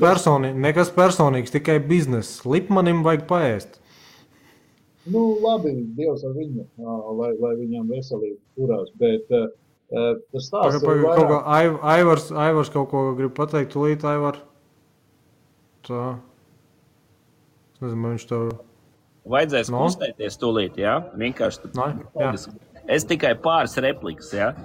personīgs, tikai bizness. Lipmanim vajag paēst. Labi, Dievs ar viņu, lai viņam veselīgi turās, bet tas stāsts ir vairāk... Aivars kaut ko grib pateikt, tūlīt, Aivar. Tā. Es nezinu, viņš tev... Vajadzēs kustēties tūlīt, jā? Vienkārši Es tikai pāris replikas, jā?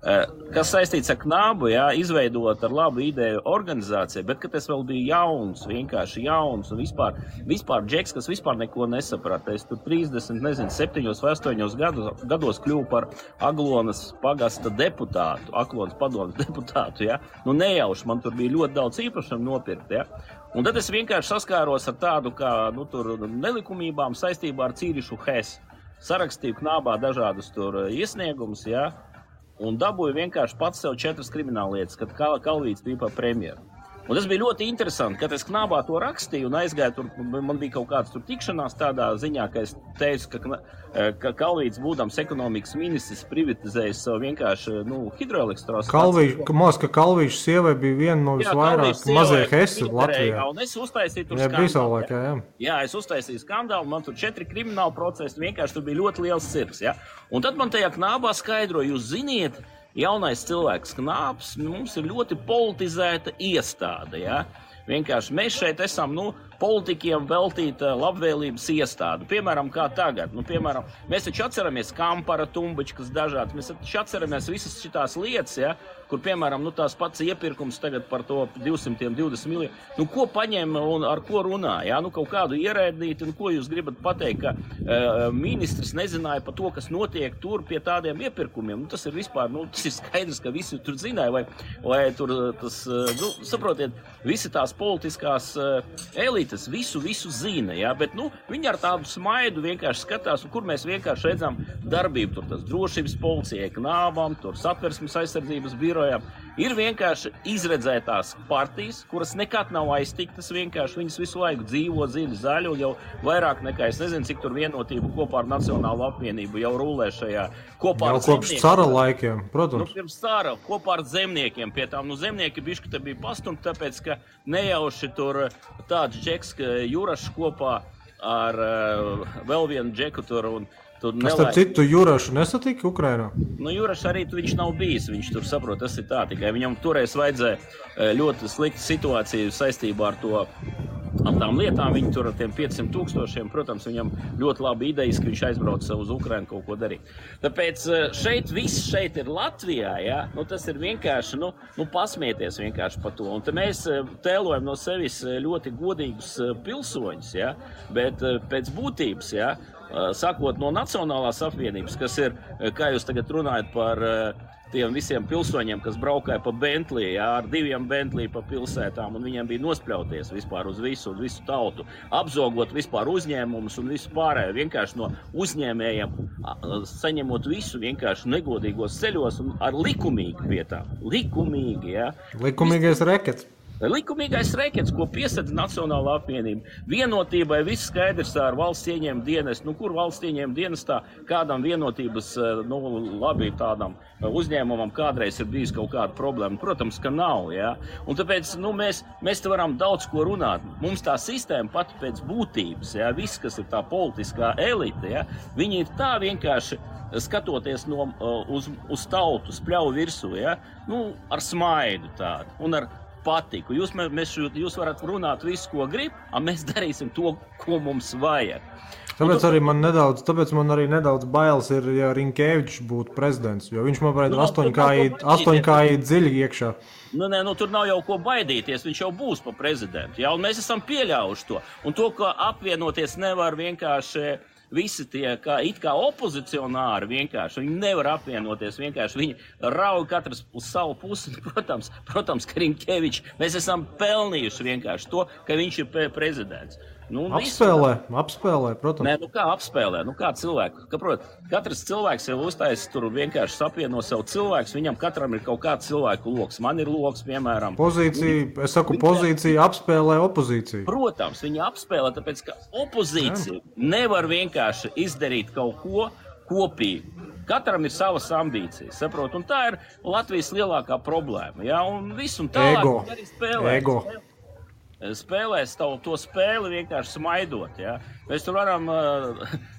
Kas saistīts ar Knabu, izveidot ar labu ideju organizāciju, bet, kad es vēl biju jauns, vienkārši jauns un vispār džeks, kas vispār neko nesaprata. Es tur 7 vai 8 gados kļuvu par Aglonas pagasta deputātu, Aglonas padomes deputātu, nejauši, man tur bija ļoti daudz īpašumu nopirkt, Un tad es vienkārši saskāros ar tādu kā, tur nelikumībām saistībā ar Cīrišu Hesu. Sarakstīju Knabā dažādus tur iesniegumus, un dabūju vienkārši pats sev 4 krimināllietas, kad Kalvīts bija par premjeru. Un tas bija ļoti interesanti, kad es Knabā to rakstīju un aizgāju tur, man bija kaut kāds tur tikšanās tādā ziņā, ka es teicu, ka Kalvīts būdams ekonomikas ministrs privatizējis savu vienkārši, hidroelektrostaciju. Kalvīša sievai bija viena no visvairāk mazie Hesi Latvijā. Un es uztaisīju tur skandālu. Es uztaisīju skandālu, man tur 4 krimināli procesi, vienkārši tur bija ļoti liels cirks, Un tad man tajā Knabā skaidroja, jūs ziniet, jaunais cilvēks Knāps, mums ir ļoti politizēta iestāde, Vienkārši mēs šeit esam, politikiem veltīta labvēlības iestāde. Piemēram, kā tagad. Piemēram, mēs taču atceramies Kampara, Tumbačkas dažādas. Mēs taču atceramies visas šitās lietas, kur, piemēram, tās pats iepirkums tagad par to 220 miljonu. Ko paņem un ar ko runā, kaut kādu ierēdnīti, ko jūs gribat pateikt, ka ministrs nezināja par to, kas notiek tur pie tādiem iepirkumiem. Tas ir vispār, tas ir skaidrs, ka visi tur zināja, vai tur tas, saprotiet, visi tās politiskās elites visu zina, bet, viņi ar tādu smaidu vienkārši skatās, un kur mēs vienkārši redzam darbību, tur tas drošības policijai, Knābam, tur satversmes aizsardzības birojām, ir vienkārši izredzētās partijas, kuras nekad nav aiztiktas, vienkārši viņas visu laiku dzīvo dziļi zaļu, jau vairāk nekā, es nezinu, cik tur vienotību kopā ar Nacionālo apvienību jau rulē šajā kopā ar zemniekiem. Kopš cara laikiem, protams. Pirms cara, kopā ar zemniekiem pie tām, zemnieki bišķi te bija pastumti, tāpēc, ka nejauši tur tāds džeks, ka Jurašs kopā ar vēl vienu džeku tur un tur nelaiž. Starp citu, Jurašu nesatika Ukrainā? Jurašs arī viņš nav bijis, viņš tur saprot, tas ir tā, tikai viņam toreiz vajadzēja ļoti sliktu situāciju saistībā ar to, ar tām lietām, viņi tur ar tiem 500 000, protams, viņam ļoti labi idejas, ka viņš aizbrauca uz Ukrainu kaut ko darīt. Tāpēc viss šeit ir Latvijā, tas ir vienkārši, pasmieties vienkārši par to. Un te mēs tēlojam no sevis ļoti godīgus pilsoņus, bet pēc būtības, sakot no Nacionālās apvienības, kas ir, kā jūs tagad runājat par tiem visiem pilsoņiem, kas braukāja pa Bentley, jā, ar 2 Bentley pa pilsētām, un viņiem bija nospļauties vispār uz visu tautu, apzogot vispār uzņēmumus un visu pārējo, vienkārši no uzņēmējiem saņemot visu vienkārši negodīgos ceļos un ar likumīgi vietām. Likumīgi, jā. Likumīgais rekets. Likumīgais rekets, ko piesedz Nacionālā apvienība. Vienotībai viss skaidrs ar valsts ieņēmuma dienestu. Kur valsts ieņēmuma dienestā kādam vienotības, labi tādam uzņēmumam kādreiz ir bijis kaut kāda problēma? Protams, ka nav, jā. Un tāpēc, mēs te varam daudz ko runāt. Mums tā sistēma pat pēc būtības, jā, viss, kas ir tā politiskā elite, jā, viņi ir tā vienkārši skatoties uz tautu, spļauj virsū, jā, ar smaidu tādu un ar patiku. Jūs varat runāt visu, ko grib, un mēs darīsim to, ko mums vajag. Tāpēc man arī nedaudz bailes ir, ja Rinkevičs būtu prezidents, jo viņš man varētu 8 kāji dziļi iekšā. Tur nav jau ko baidīties, viņš jau būs pa prezidentu, jā, un mēs esam pieļaujuši to. Un to, ka apvienoties nevar vienkārši visi tie, it kā opozicionāri vienkārši, viņi nevar apvienoties, vienkārši viņi rauj katrs uz savu pusi. Protams, ka Rinkevičs, mēs esam pelnījuši vienkārši to, ka viņš ir prezidents. Apspēlē, protams. Nē, kā apspēlē, kā cilvēku. Katrs cilvēks jau uztais tur vienkārši sapieno sev cilvēks, viņam katram ir kaut kāds cilvēku loks. Man ir loks, piemēram. Pozīcija apspēlē opozīciju. Protams, viņi apspēlē, tāpēc, ka opozīcija nevar vienkārši izdarīt kaut ko kopīgi. Katram ir savas ambīcijas, saprot, un tā ir Latvijas lielākā problēma, jā, un viss un tālāk arī spēlē. Spēlēs to spēli vienkārši smaidot, jā. Mēs tur varam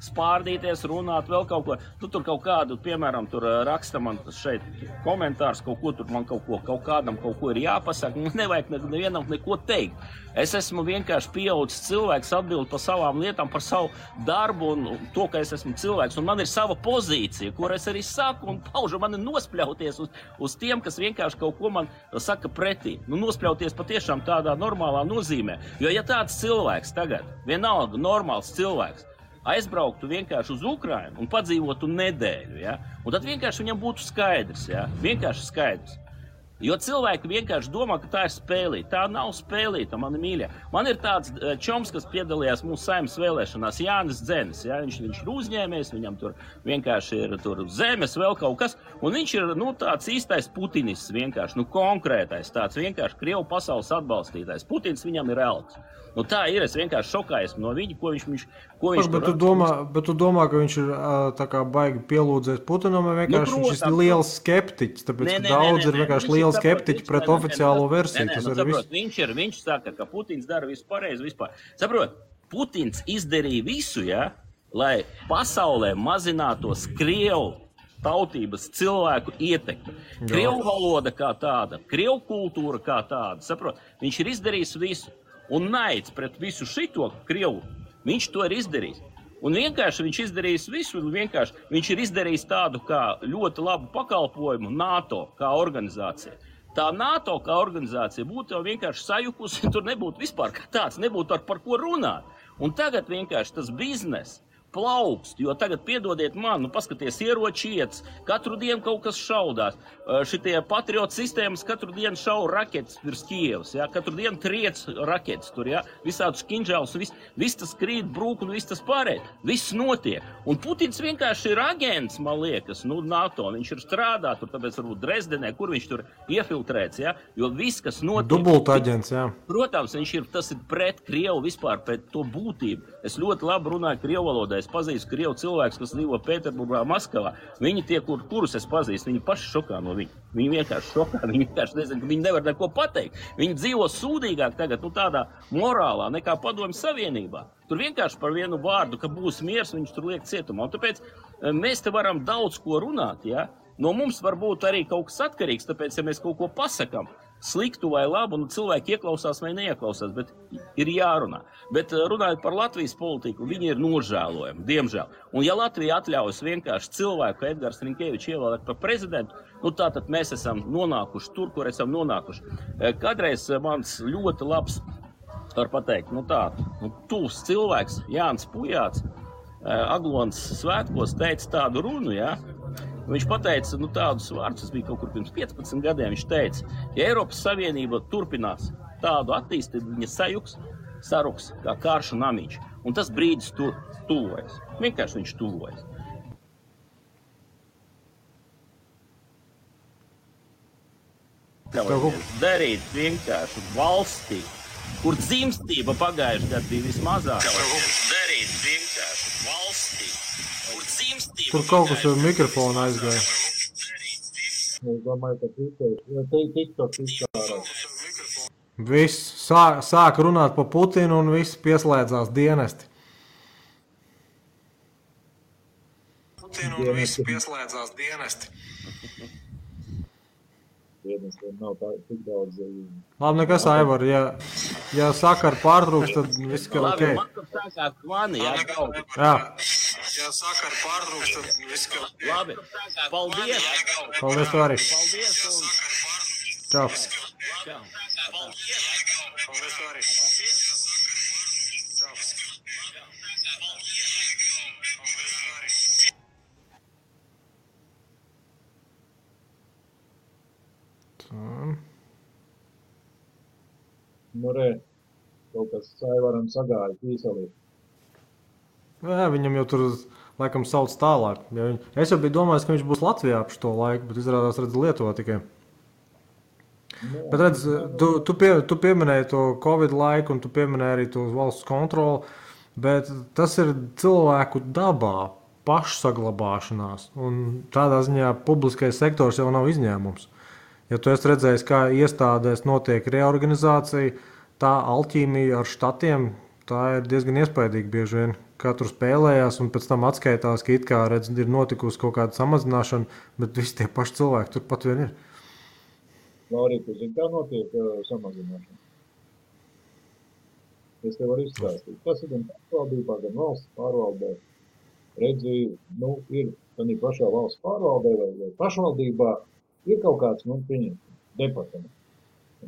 spārdīties, runāt, vēl kaut ko. Tur kaut kādu, piemēram, tur raksta man šeit komentārs, kaut ko tur man kaut kādam kaut ko ir jāpasaka. Nevajag nevienam neko teikt. Es esmu vienkārši pieaudzis cilvēks, atbild par savām lietām, par savu darbu un to, ka es esmu cilvēks. Un man ir sava pozīcija, kur es arī saku un paužu. Man ir nospļauties uz tiem, kas vienkārši kaut ko man saka pretī. Nospļauties patiešām tādā normālā nozīmē. Jo ja tāds cilvēks tagad, vienalga normāls cilvēks, aizbrauktu vienkārši uz Ukrainu un padzīvotu nedēļu, ja? Un tad vienkārši viņam būtu skaidrs, ja? Vienkārši skaidrs. Jo cilvēki vienkārši domā, ka tā ir spēlīta. Tā nav spēlīta, mani mīļie. Man ir tāds čoms, kas piedalījās mūsu saimnes vēlēšanās, Jānis Dzenis. Ja? Viņš ir uzņēmējs, viņam tur vienkārši ir tur zemes, vēl kaut kas. Un viņš ir tāds īstais putinists vienkārši, konkrētais tāds vienkārši Krievu pasaules atbalstītājs. Putins viņam ir elks. Tā ir, es vienkārši šokājos no viņa, ko viņš bet tu domā, ka viņš ir tā kā baigi pielūdzēs Putinam, vai vienkārši viņš ir liels skeptiķis, tāpēc, ka daudz ir vienkārši liels skeptiķi pret oficiālo versiju. Viņš saka, ka Putins dara visu pareizi vispār. Saprot, Putins izdarīja visu, ja, lai pasaulē mazinātos Krievu tautības cilvēku ietekmi. Krievu valoda kā tāda, Krievu kultūra kā tāda, saprot, viņš ir izdarījis visu. Un naids pret visu šito Krievu, viņš to ir izdarījis. Un vienkārši viņš izdarījis visu, viņš ir izdarījis tādu kā ļoti labu pakalpojumu NATO kā organizācija. Tā NATO kā organizācija būtu jau vienkārši sajukusi, tur nebūtu vispār kā tāds, nebūtu par ko runāt. Un tagad vienkārši tas biznes plaukst, jo tagad piedodiet man, paskaties, ieroči iets, katru dienu kaut kas šaudās. Šitie patriotu sistēmas katru dienu šauj raketas virs Kievas, ja? Katru dienu triec raketas tur, ja? Visādus kinžālus, viss tas krīt, brūk un viss tas pārējais. Viss notiek. Un Putins vienkārši ir agents, man liekas, NATO. Viņš ir strādā tur, tāpēc varbūt Dresdenē, kur viņš tur iefiltrēts, ja? Jo viss, kas notiek. Dubulta aģents, jā. Protams, tas ir pret Krievu vispār, pret to būtību. Es ļoti labi runāju Krievu valodā. Es pazīstu Krievu cilvēkus, kas dzīvo Pēterburgā, Maskavā. Viņi tie, kurus es pazīstu, viņi paši šokā no viņa. Viņi vienkārši šokā, viņi vienkārši nezinu, ka viņi nevar neko pateikt. Viņi dzīvo sūdīgāk tagad, tādā morālā nekā Padomju Savienībā. Tur vienkārši par vienu vārdu, ka būs miers, viņš tur liek cietumā. Un tāpēc mēs te varam daudz ko runāt, ja? No mums var būt arī kaut kas atkarīgs, tāpēc, ja mēs kaut ko pasakam, sliktu vai labu, cilvēki ieklausās vai neieklausās, bet ir jārunā. Bet runājot par Latvijas politiku, viņi ir nožēlojami, diemžēl. Un ja Latvija atļaujas vienkārši cilvēku, Edgars Rinkevičs ievēlēt par prezidentu, tātad mēs esam nonākuši tur, kur esam nonākuši. Kādreiz mans ļoti labs, var pateikt, tuvs cilvēks, Jānis Pujāts, Aglonas svētkos teica tādu runu, ja? Viņš pateica tādus vārdus, tas bija kaut kur pirms 15 gadiem. Viņš teica, ja Eiropas Savienība turpinās tādu attīstību, viņa saruks kā karšu namiņš. Un tas brīdis tuvojas. Vienkārši viņš tuvojas. Darīt vienkārši valstī, kur dzimstība pagājuši gadu bija vismazāk. Darīt vienkārši valstī, kur dzimstība. Tur kaut kas ar mikrofonu aizgāja. Es domāju, ka TikTok izkārās. Viss sāk runāt pa Putinu un viss pieslēdzās dienesti. Dienestiem nav tā tik daudz. Labi, nekas, Aivar, ja sakara pārtrūks, tad viss ir ok. Man tur sākās kvani, jā. Ja sakara pārtrūks, tad viss ir ok. Labi, paldies. Paldies, tu arī. Paldies un... Čau. Čau. Paldies, tu arī. Nu, kaut kas Aivaram sagāja tīselī. Jā, viņam jau tur laikam sauc tālāk. Es jau biju domājis, ka viņš būs Latvijā ap šo laiku, bet izrādās redz Lietuvā tikai. Bet redz, tu pieminēji to Covid laiku un tu pieminēji arī to valsts kontroli, bet tas ir cilvēku dabā, pašsaglabāšanās. Un tādā ziņā publiskais sektors jau nav izņēmums. Ja tu esi redzējis, kā iestādēs notiek reorganizācija, tā alķīmija ar štatiem, tā ir diezgan iespaidīga bieži vien. Kā tur spēlējās un pēc tam atskaitās, ka it kā redz, ir notikusi kaut kāda samazināšana, bet visi tie paši cilvēki tur pat vien ir. Laurīt, tu zini, kā notiek samazināšana? Es tev varu izstāstīt. Tas ir gan pārvaldībā, gan valsts pārvaldē. Redzi, ir tādā pašā valsts pārvaldē vai pašvaldībā ir kaut kāds, departaments.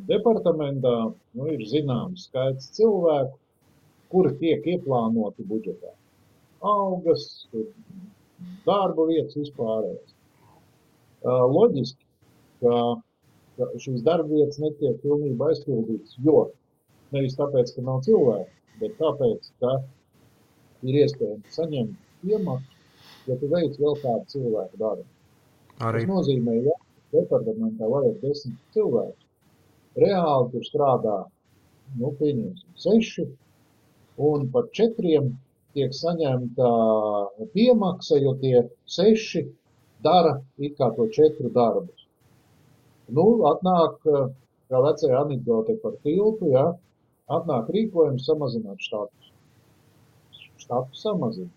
Departamentā, ir zināms skaits cilvēku, kuri tiek ieplānoti budžetā. Algas, darba vietas vispārējais. Loģiski, ka šīs darba vietas netiek pilnībā aizpildītas, jo nevis tāpēc, ka nav cilvēku, bet tāpēc, ka ir iespējams saņemt iemaksu, ja tu veic vēl kādu cilvēku darbu. Tas nozīmē, ja departamentā vajag 10 cilvēku. Reāli tur strādā, pieņemsim 6, un par 4 tiek saņemta piemaksa, jo tie 6 dara it kā to 4 darbus. Atnāk, kā vecajā anekdote par tiltu, atnāk rīkojums samazināt štatus. Štatus samazina.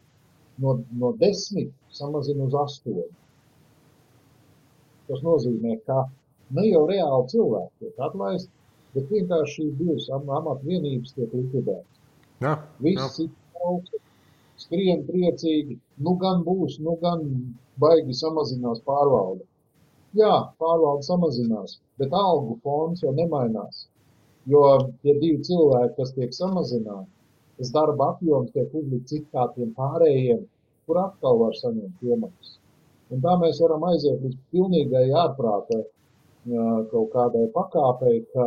No 10 samazina uz 8. Tas nozīmē, ka ne jau reāli cilvēki tiek atlaisti, bet vienkārši šīs divas amatvienības tiek likvidētas. Visi augsti, skrien priecīgi, gan būs, gan baigi samazinās pārvalde. Jā, pārvalde samazinās, bet algu fonds jau nemainās, jo tie 2 cilvēki, kas tiek samazināti, tas darba apjoms tiek uzlikts it kā tiem pārējiem, kur atkal var saņemt piemaksas. Un tā mēs varam aiziet līdz pilnīgai ārprātai kaut kādai pakāpei, ka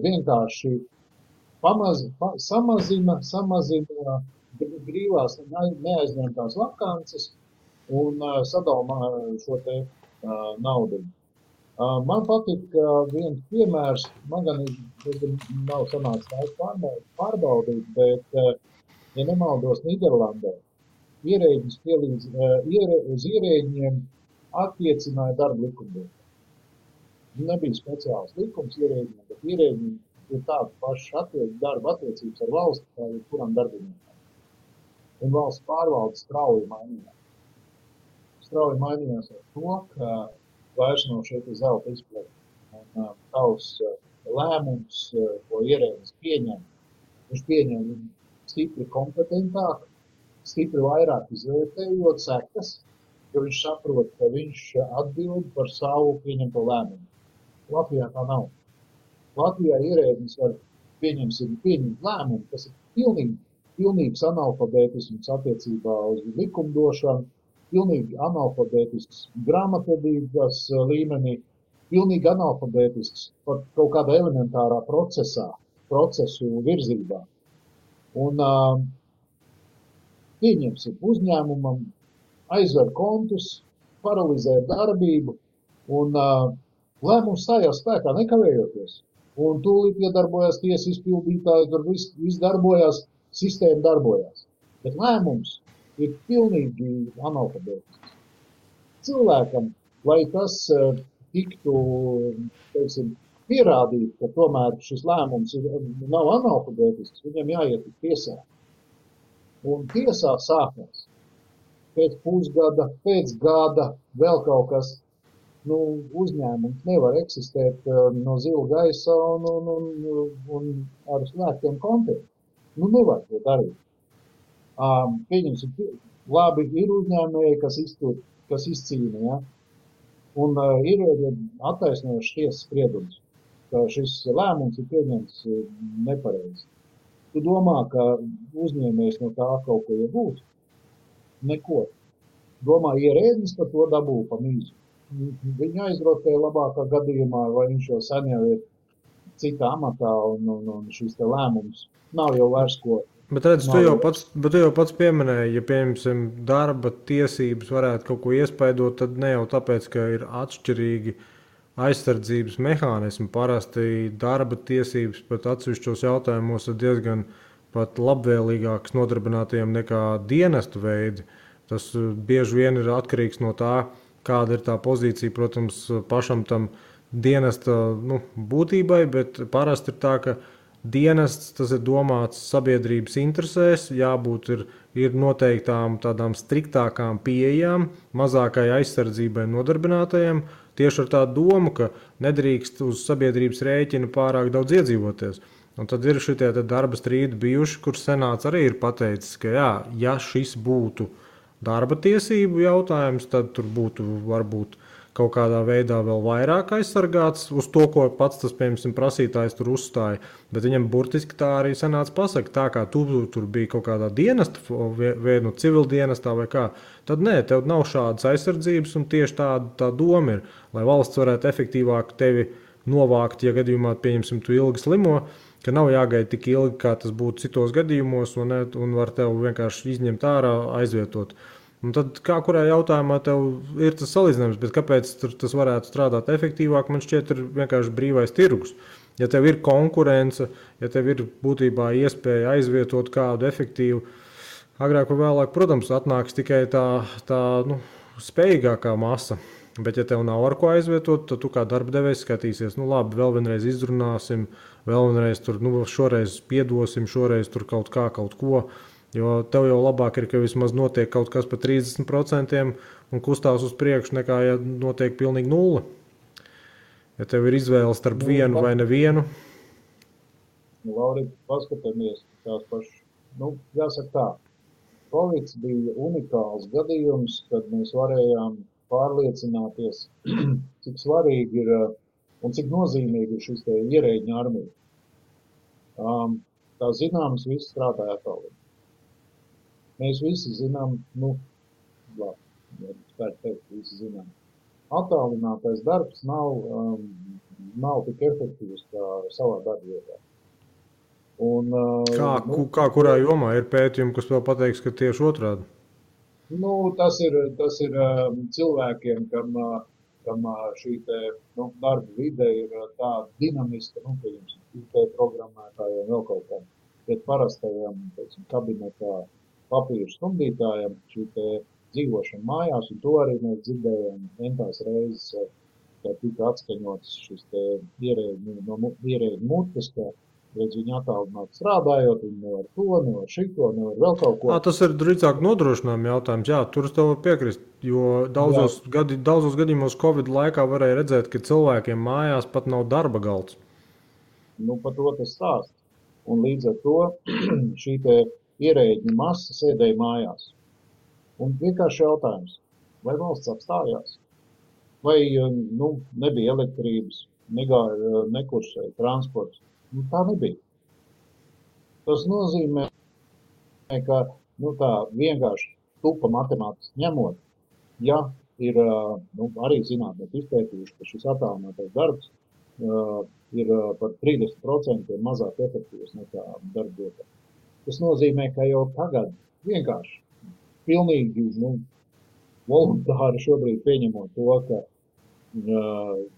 vienkārši samazina brīvās neaizņemtās vakances un sadalā šo te naudu. Man patīk viens piemērs, man gan nav sanācis pārbaudīt, bet, ja nemaldos, Nīderlandē ierēģis uz ierēģiem attiecināja darba likumdošanu. Nebija speciāls likums ierēģiem, bet ierēģiem ir tāda paša darba attiecības ar valsti, kā kuram darbiniekam. Un valsts pārvalde strauji mainījās. Strauji mainījās ar to, ka vairs nav šeit zelta izplet. Un tavs lēmums, ko ierēģis pieņem, viņš pieņem stipri kompetentāk, stipri vairāk izvērtējot sekas, jo viņš saprot, ka viņš atbild par savu pieņemto lēmumu. Latvijā tā nav. Latvijā ierēdnis var pieņemt lēmumu, kas ir pilnīgs analfabētisms attiecībā uz likumdošanu, pilnīgi analfabētisks grāmatvedības līmenī, pilnīgi analfabētisks pat kaut kādā elementārā procesu virzībā. Un pieņemsim uzņēmumam, aizver kontus, paralizē darbību, un lēmums stājās spēkā nekavējoties. Un tūlīt iedarbojās tiesas izpildītāji, tur viss darbojās, sistēma darbojās. Bet lēmums ir pilnīgi analfabētisks. Cilvēkam, lai tas tiktu, teiksim, pierādīt, ka tomēr šis lēmums nav analfabētisks, viņam jāiet uz tiesā. Un tiesā sākās pēc pusgada, pēc gada, vēl kaut kas. Uzņēmums nevar eksistēt no zila gaisa un ar slēgtiem kontiem. Nevar to darīt. Pieņemsim, labi, ir uzņēmēji, kas izcīna, ja? Un ir attaisnojošs tiesas spriedums, ka šis lēmums ir pieņemts nepareizi. Tu domā, ka uzņēmējs no tā kaut ko iegūst? Neko. Domā, ierēdnis par to dabū pa mīzu. Viņu aizrotē labākā gadījumā, vai viņš jau sen jau ir citā amatā un šis te lēmums nav jau vairs ko. Bet redz, tu jau pats pieminēji, ja pieņemsim darba tiesības varētu kaut ko iespaidot, tad ne jau tāpēc, ka ir atšķirīgi aizsardzības mehānismi. Parasti darba tiesības pat atsevišķos jautājumos ir diezgan pat labvēlīgākas nodarbinātajiem nekā dienestu veidi. Tas bieži vien ir atkarīgs no tā, kāda ir tā pozīcija, protams, pašam tam dienesta būtībai, bet parasti ir tā, ka dienests tas ir domāts sabiedrības interesēs, jābūt ir noteiktām tādām striktākām pieejām, mazākai aizsardzībai nodarbinātajiem, tieši ar tādu domu, ka nedrīkst uz sabiedrības rēķina pārāk daudz iedzīvoties. Un tad ir šitie darba strīdi bijuši, kur senāts arī ir pateicis, ka jā, ja šis būtu darba tiesību jautājums, tad tur būtu varbūt kaut kādā veidā vēl vairāk aizsargāts uz to, ko pats tas, piemēram, prasītājs tur uzstāja. Bet viņam burtiski tā arī senāts pasaka, tā kā tu tur bija kaut kādā dienesta, vai civildienestā vai kā, tad nē, tev nav šādas aizsardzības un tieši tā doma ir, lai valsts varētu efektīvāk tevi novākt, ja gadījumā, pieņemsim, tu ilgi slimo, ka nav jāgaida tik ilgi, kā tas būtu citos gadījumos, un var tev vienkārši izņemt ārā, aizvietot. Un tad kā kurā jautājumā tev ir tas salīdzinājums, bet kāpēc tas varētu strādāt efektīvāk, man šķiet ir vienkārši brīvais tirgus. Ja tev ir konkurence, ja tev ir būtībā iespēja aizvietot kādu efektīvu, agrāk vai vēlāk, protams, atnāks tikai tā spējīgākā masa. Bet, ja tev nav ar ko aizvietot, tad tu kā darba devējs skatīsies, labi, vēl vienreiz izrunāsim, vēl vienreiz tur, šoreiz piedosim, šoreiz tur kaut ko, jo tev jau labāk ir, ka vismaz notiek kaut kas par 30% un kustās uz priekšu, nekā ja notiek pilnīgi 0. Ja tev ir izvēle starp vienu vai nevienu. Laurīt, paskatāmies tās pašas, jāsaka tā, Covid bija unikāls gadījums, kad mēs varējām pārliecināties, cik svarīgi ir un cik nozīmīgi ir šis ierēģņu armija. Kā zināms, visi strādāja attālināti. Mēs visi zinām, visi zinām. Attālinātais darbs nav tik efektīvs kā savā darba vietā. Kā kurā jomā ir pētījumi, kas vēl pateiks, ka tieši otrādi? Tas ir cilvēkiem, kam šī darba vide ir tāda dinamiska, IT programmētājiem vēl kaut kā, bet parastajiem, kabinetā papīru stumdītājiem šī dzīvošana mājās, un to arī mēs dzirdējām entās reizes, ka tika atskaņots šis ierēģu mutes, ka redz viņi attālināti strādājot, viņi nevar to, nevar šito, nevar vēl kaut ko. Tas ir drīzāk nodrošinājuma jautājums. Jā, tur es tev varu piekrist, jo daudzos gadījumos Covid laikā varēja redzēt, ka cilvēkiem mājās pat nav darba galds. Par to tas stāsts. Un līdz ar to šī ierēģu masa sēdēja mājās. Un vienkārši jautājums, vai valsts apstājās? Vai nebija elektrības, nekursēja transports? Tā nebija. Tas nozīmē, ka tā vienkārši tupa matemātiski ņemot, ja ir arī zinātnieki izpētījuši, ka šis attālinātais darbs ir par 30% mazāk efektīvs nekā darbvietā. Tas nozīmē, ka jau tagad vienkārši pilnīgi voluntāri šobrīd pieņemot to, ka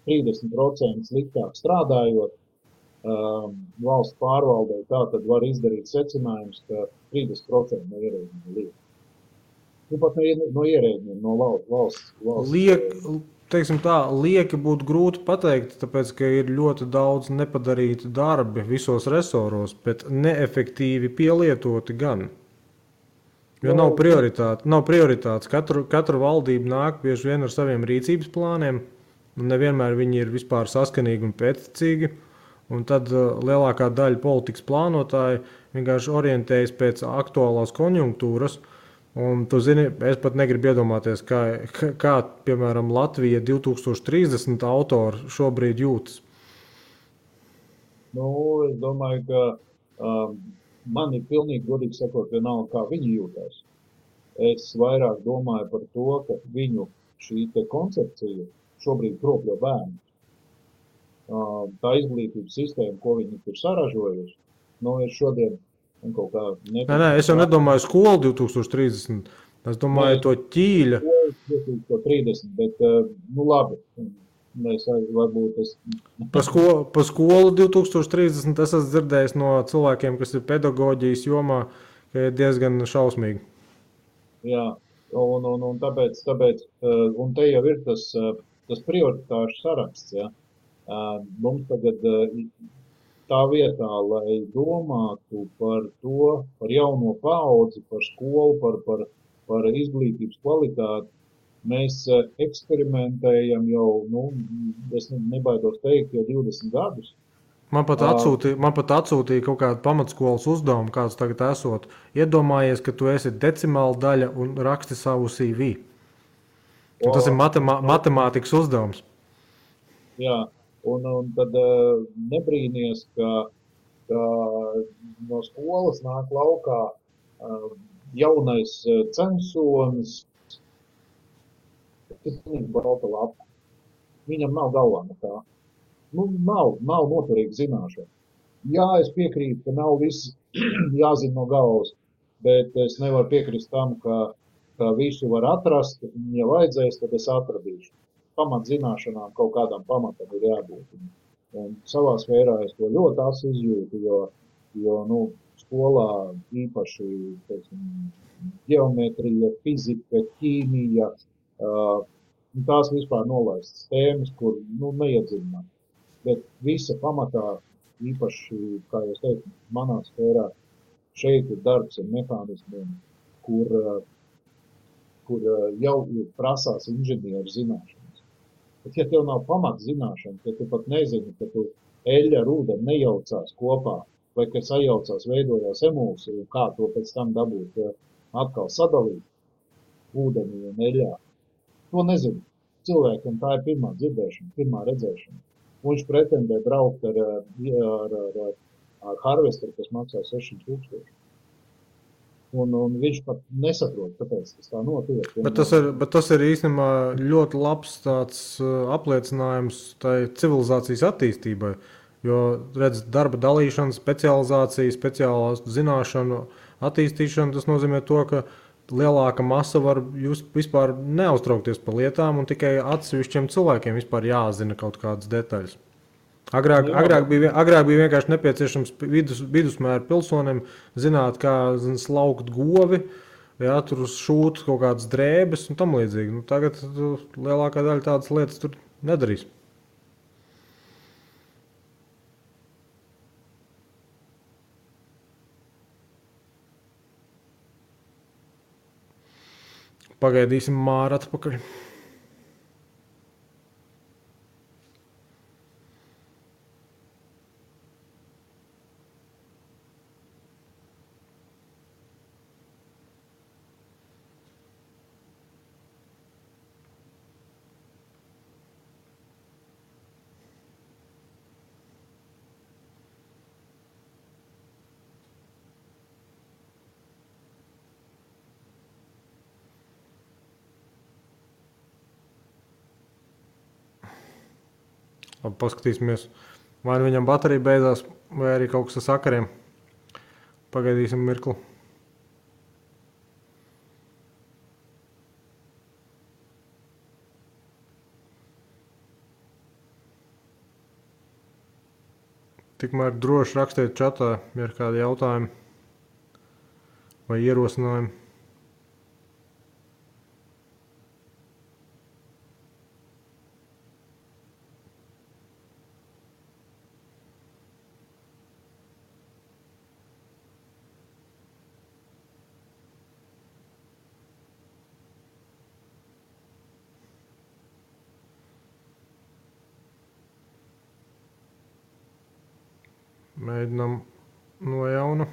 30% sliktāk strādājot, valsts pārvaldē tā tad var izdarīt secinājums, ka 30% no ierēģiem liek. Pat no ierēģiem, no valsts. Teiksim tā, lieki būtu grūti pateikt, tāpēc, ka ir ļoti daudz nepadarītu darbi visos resoros, bet neefektīvi pielietoti gan. Jo nav prioritātes. Katra valdība nāk bieži vien ar saviem rīcības plāniem, un nevienmēr viņi ir vispār saskanīgi un pēctecīgi. Un tad lielākā daļa politikas plānotāji vienkārši orientējas pēc aktuālās konjunktūras. Un, tu zini, es pat negribu iedomāties, kā piemēram, Latvija 2030 autori šobrīd jūtas. Es domāju, ka man ir pilnīgi godīgi sakot, vienalga, kā viņi jūtas. Es vairāk domāju par to, ka viņu šī koncepcija šobrīd kropļo bērnu. Tā izglītības sistēma, ko viņi tur saražojuši, ir šodien kaut kā Nē, es jau nedomāju skolu 2030. Es domāju to ķīļa. 2030, bet labi. Varbūt es... Pa skolu 2030 es esmu dzirdējis no cilvēkiem, kas ir pedagoģijas jomā, ka ir diezgan šausmīgi. Jā, un tāpēc un te jau ir tas prioritāšu saraksts, ja. Mums tagad tā vietā, lai domātu par to, par jauno paudzi, par skolu, par izglītības kvalitāti, mēs eksperimentējam jau, es nebaidos teikt, jau 20 gadus. Man pat atsūtīja kaut kādu pamatskolas uzdevumu, kāds tagad esot. Iedomājies, ka tu esi decimāla daļa un raksti savu CV. Un tas ir matemātikas uzdevums. Jā. Un tad nebrīnies, ka no skolas nāk laukā jaunais censonis, kas ir balta lapa. Viņam nav galvā nekā. Nav noturīga zināšana. Jā, es piekrītu, ka nav viss jāzina no galvas, bet es nevaru piekrist tam, ka visu var atrast, un ja vajadzēs, tad es atradīšu. Pamatzināšanām kaut kādam pamatam ir jābūt. Un savā sfērā es to ļoti asi izjūtu, jo skolā īpaši, teiksim, ģeometrija, fizika, ķīmija, tās vispār nolaistas tēmas, kur neiedziļināt. Bet visa pamatā, īpaši, kā jūs teicu, manā sfērā, šeit ir darbs ar mehānismiem, kur jau prasās inženieru zināšana. Bet, ja tev nav pamatzināšana, ja tu pat nezini, ka tu eļļa ar ūdeni nejaucās kopā, vai ka sajaucās, veidojās emulsija, un kā to pēc tam dabūt atkal sadalīt ūdenī un eļļā, to nezinu. Cilvēkam tā ir pirmā dzirdēšana, pirmā redzēšana. Viņš pretendē braukt ar harvesteru, kas maksā 600 000. Un viņš pat nesaprot, kāpēc tas tā notiek. Bet tas ir īstenībā ļoti labs tāds apliecinājums tai civilizācijas attīstībai. Jo, redz, darba dalīšana, specializācija, speciālās zināšanu attīstīšana, tas nozīmē to, ka lielāka masa var jūs vispār neuztraukties par lietām un tikai atsevišķiem cilvēkiem vispār jāzina kaut kādas detaļas. Agrāk bija vienkārši nepieciešams vidusmēra pilsonim zināt, kā slaukt govi, jā, tur šūt kaut kādas drēbes un tam līdzīgi. Tagad lielākā daļa tādas lietas tur nedarīs. Pagaidīsim Māru atpakaļ. Labi, paskatīsimies. Vai nu viņam baterija beidzās, vai arī kaut kas ar sakariem. Pagaidīsim mirkli. Tikmēr droši rakstiet čatā, ja ir kādi jautājumi vai ierosinājumi. Mēģinām no jauna.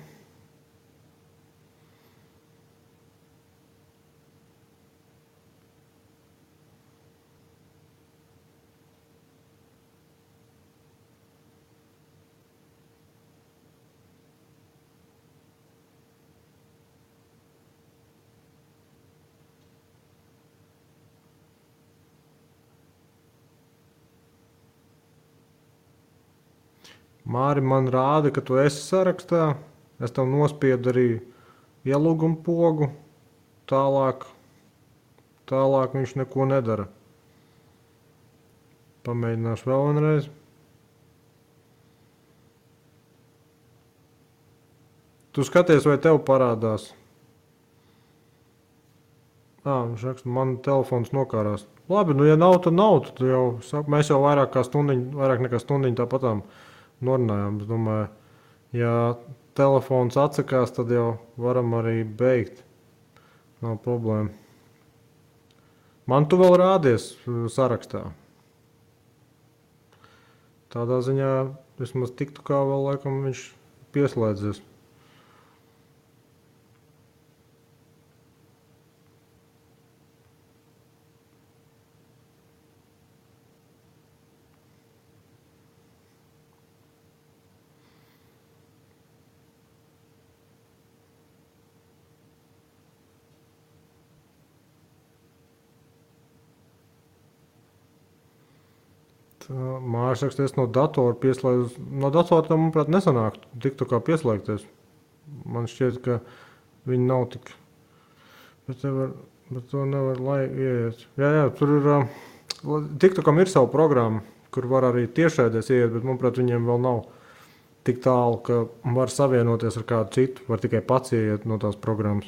Māri man rāda, ka tu esi sarakstā. Es tev nospiedu arī ielūgumu pogu. Tālāk viņš neko nedara. Pamēģināšu vēl vienreiz. Tu skaties, vai tev parādās? Viņš raksta, man telefons nokārās. Labi, nu ja nav, tad nav. Tad jau, mēs jau vairāk nekā stundiņu tāpatām norunājām. Es domāju, ja telefons atsakās, tad jau varam arī beigt. Nav problēma. Man tu vēl rādies sarakstā. Tādā ziņā vismaz tiktu kā vēl laikam viņš pieslēdzies. Māris raksta, es no datora pieslēdzu. No datora tam, manuprāt, nesanāk tiktu kā pieslēgties. Man šķiet, ka viņi nav tik... Bet to nevar, lai ieiet. Jā, tur ir... Tiktu kam ir savu programmu, kur var arī tiešēdies ieiet, bet, manuprāt, viņiem vēl nav tik tālu, ka var savienoties ar kādu citu. Var tikai pats ieiet no tās programmas.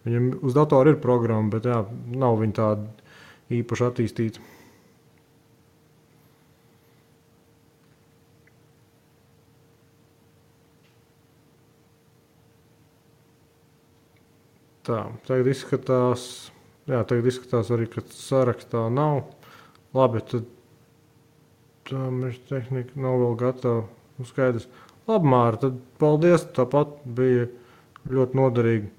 Viņam uz datora ir programma, bet jā, nav viņa tāda īpaši attīstīta. Tā, tagad izskatās arī, ka sarakstā nav. Labi, tad tā mēs tehnika nav vēl gatava. Skaidrs. Labi, Māra, tad paldies, tāpat bija ļoti noderīgi.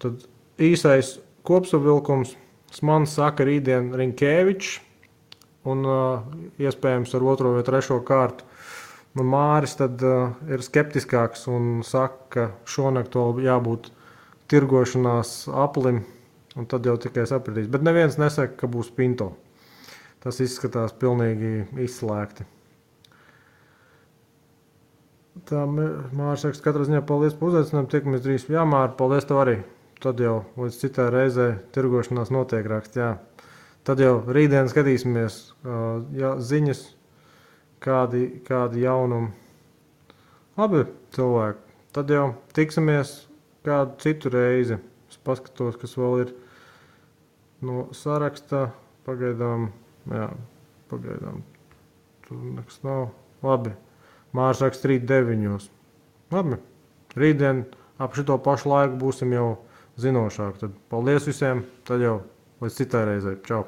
Tad īsais kopsavilkums. Smans saka rītdien Rinkēvičs un iespējams ar 2. vai 3. kārtu. Un Māris tad ir skeptiskāks un saka, ka šonakt vēl jābūt tirgošanās aplim, un tad jau tikai sapratīs. Bet neviens nesaka, ka būs Pinto. Tas izskatās pilnīgi izslēgti. Tā Māris saka, katrā ziņā paldies par uzaicinājumu, tiekamies drīz. Jā, Māri, paldies tev arī. Tad jau līdz citai reizē tirgošanās notiek raksts, jā. Tad jau rītdien skatīsimies ziņas, kādi jaunumi. Labi, cilvēki. Tad jau tiksimies kādu citu reizi. Es paskatos, kas vēl ir no sarakstā. Pagaidām. Tur nekas nav. Labi. Māris raksta rīt 9. Labi. Rītdien ap šito pašu laiku būsim jau zinošāk. Tad paldies visiem. Tad jau līdz citai reizei. Čau.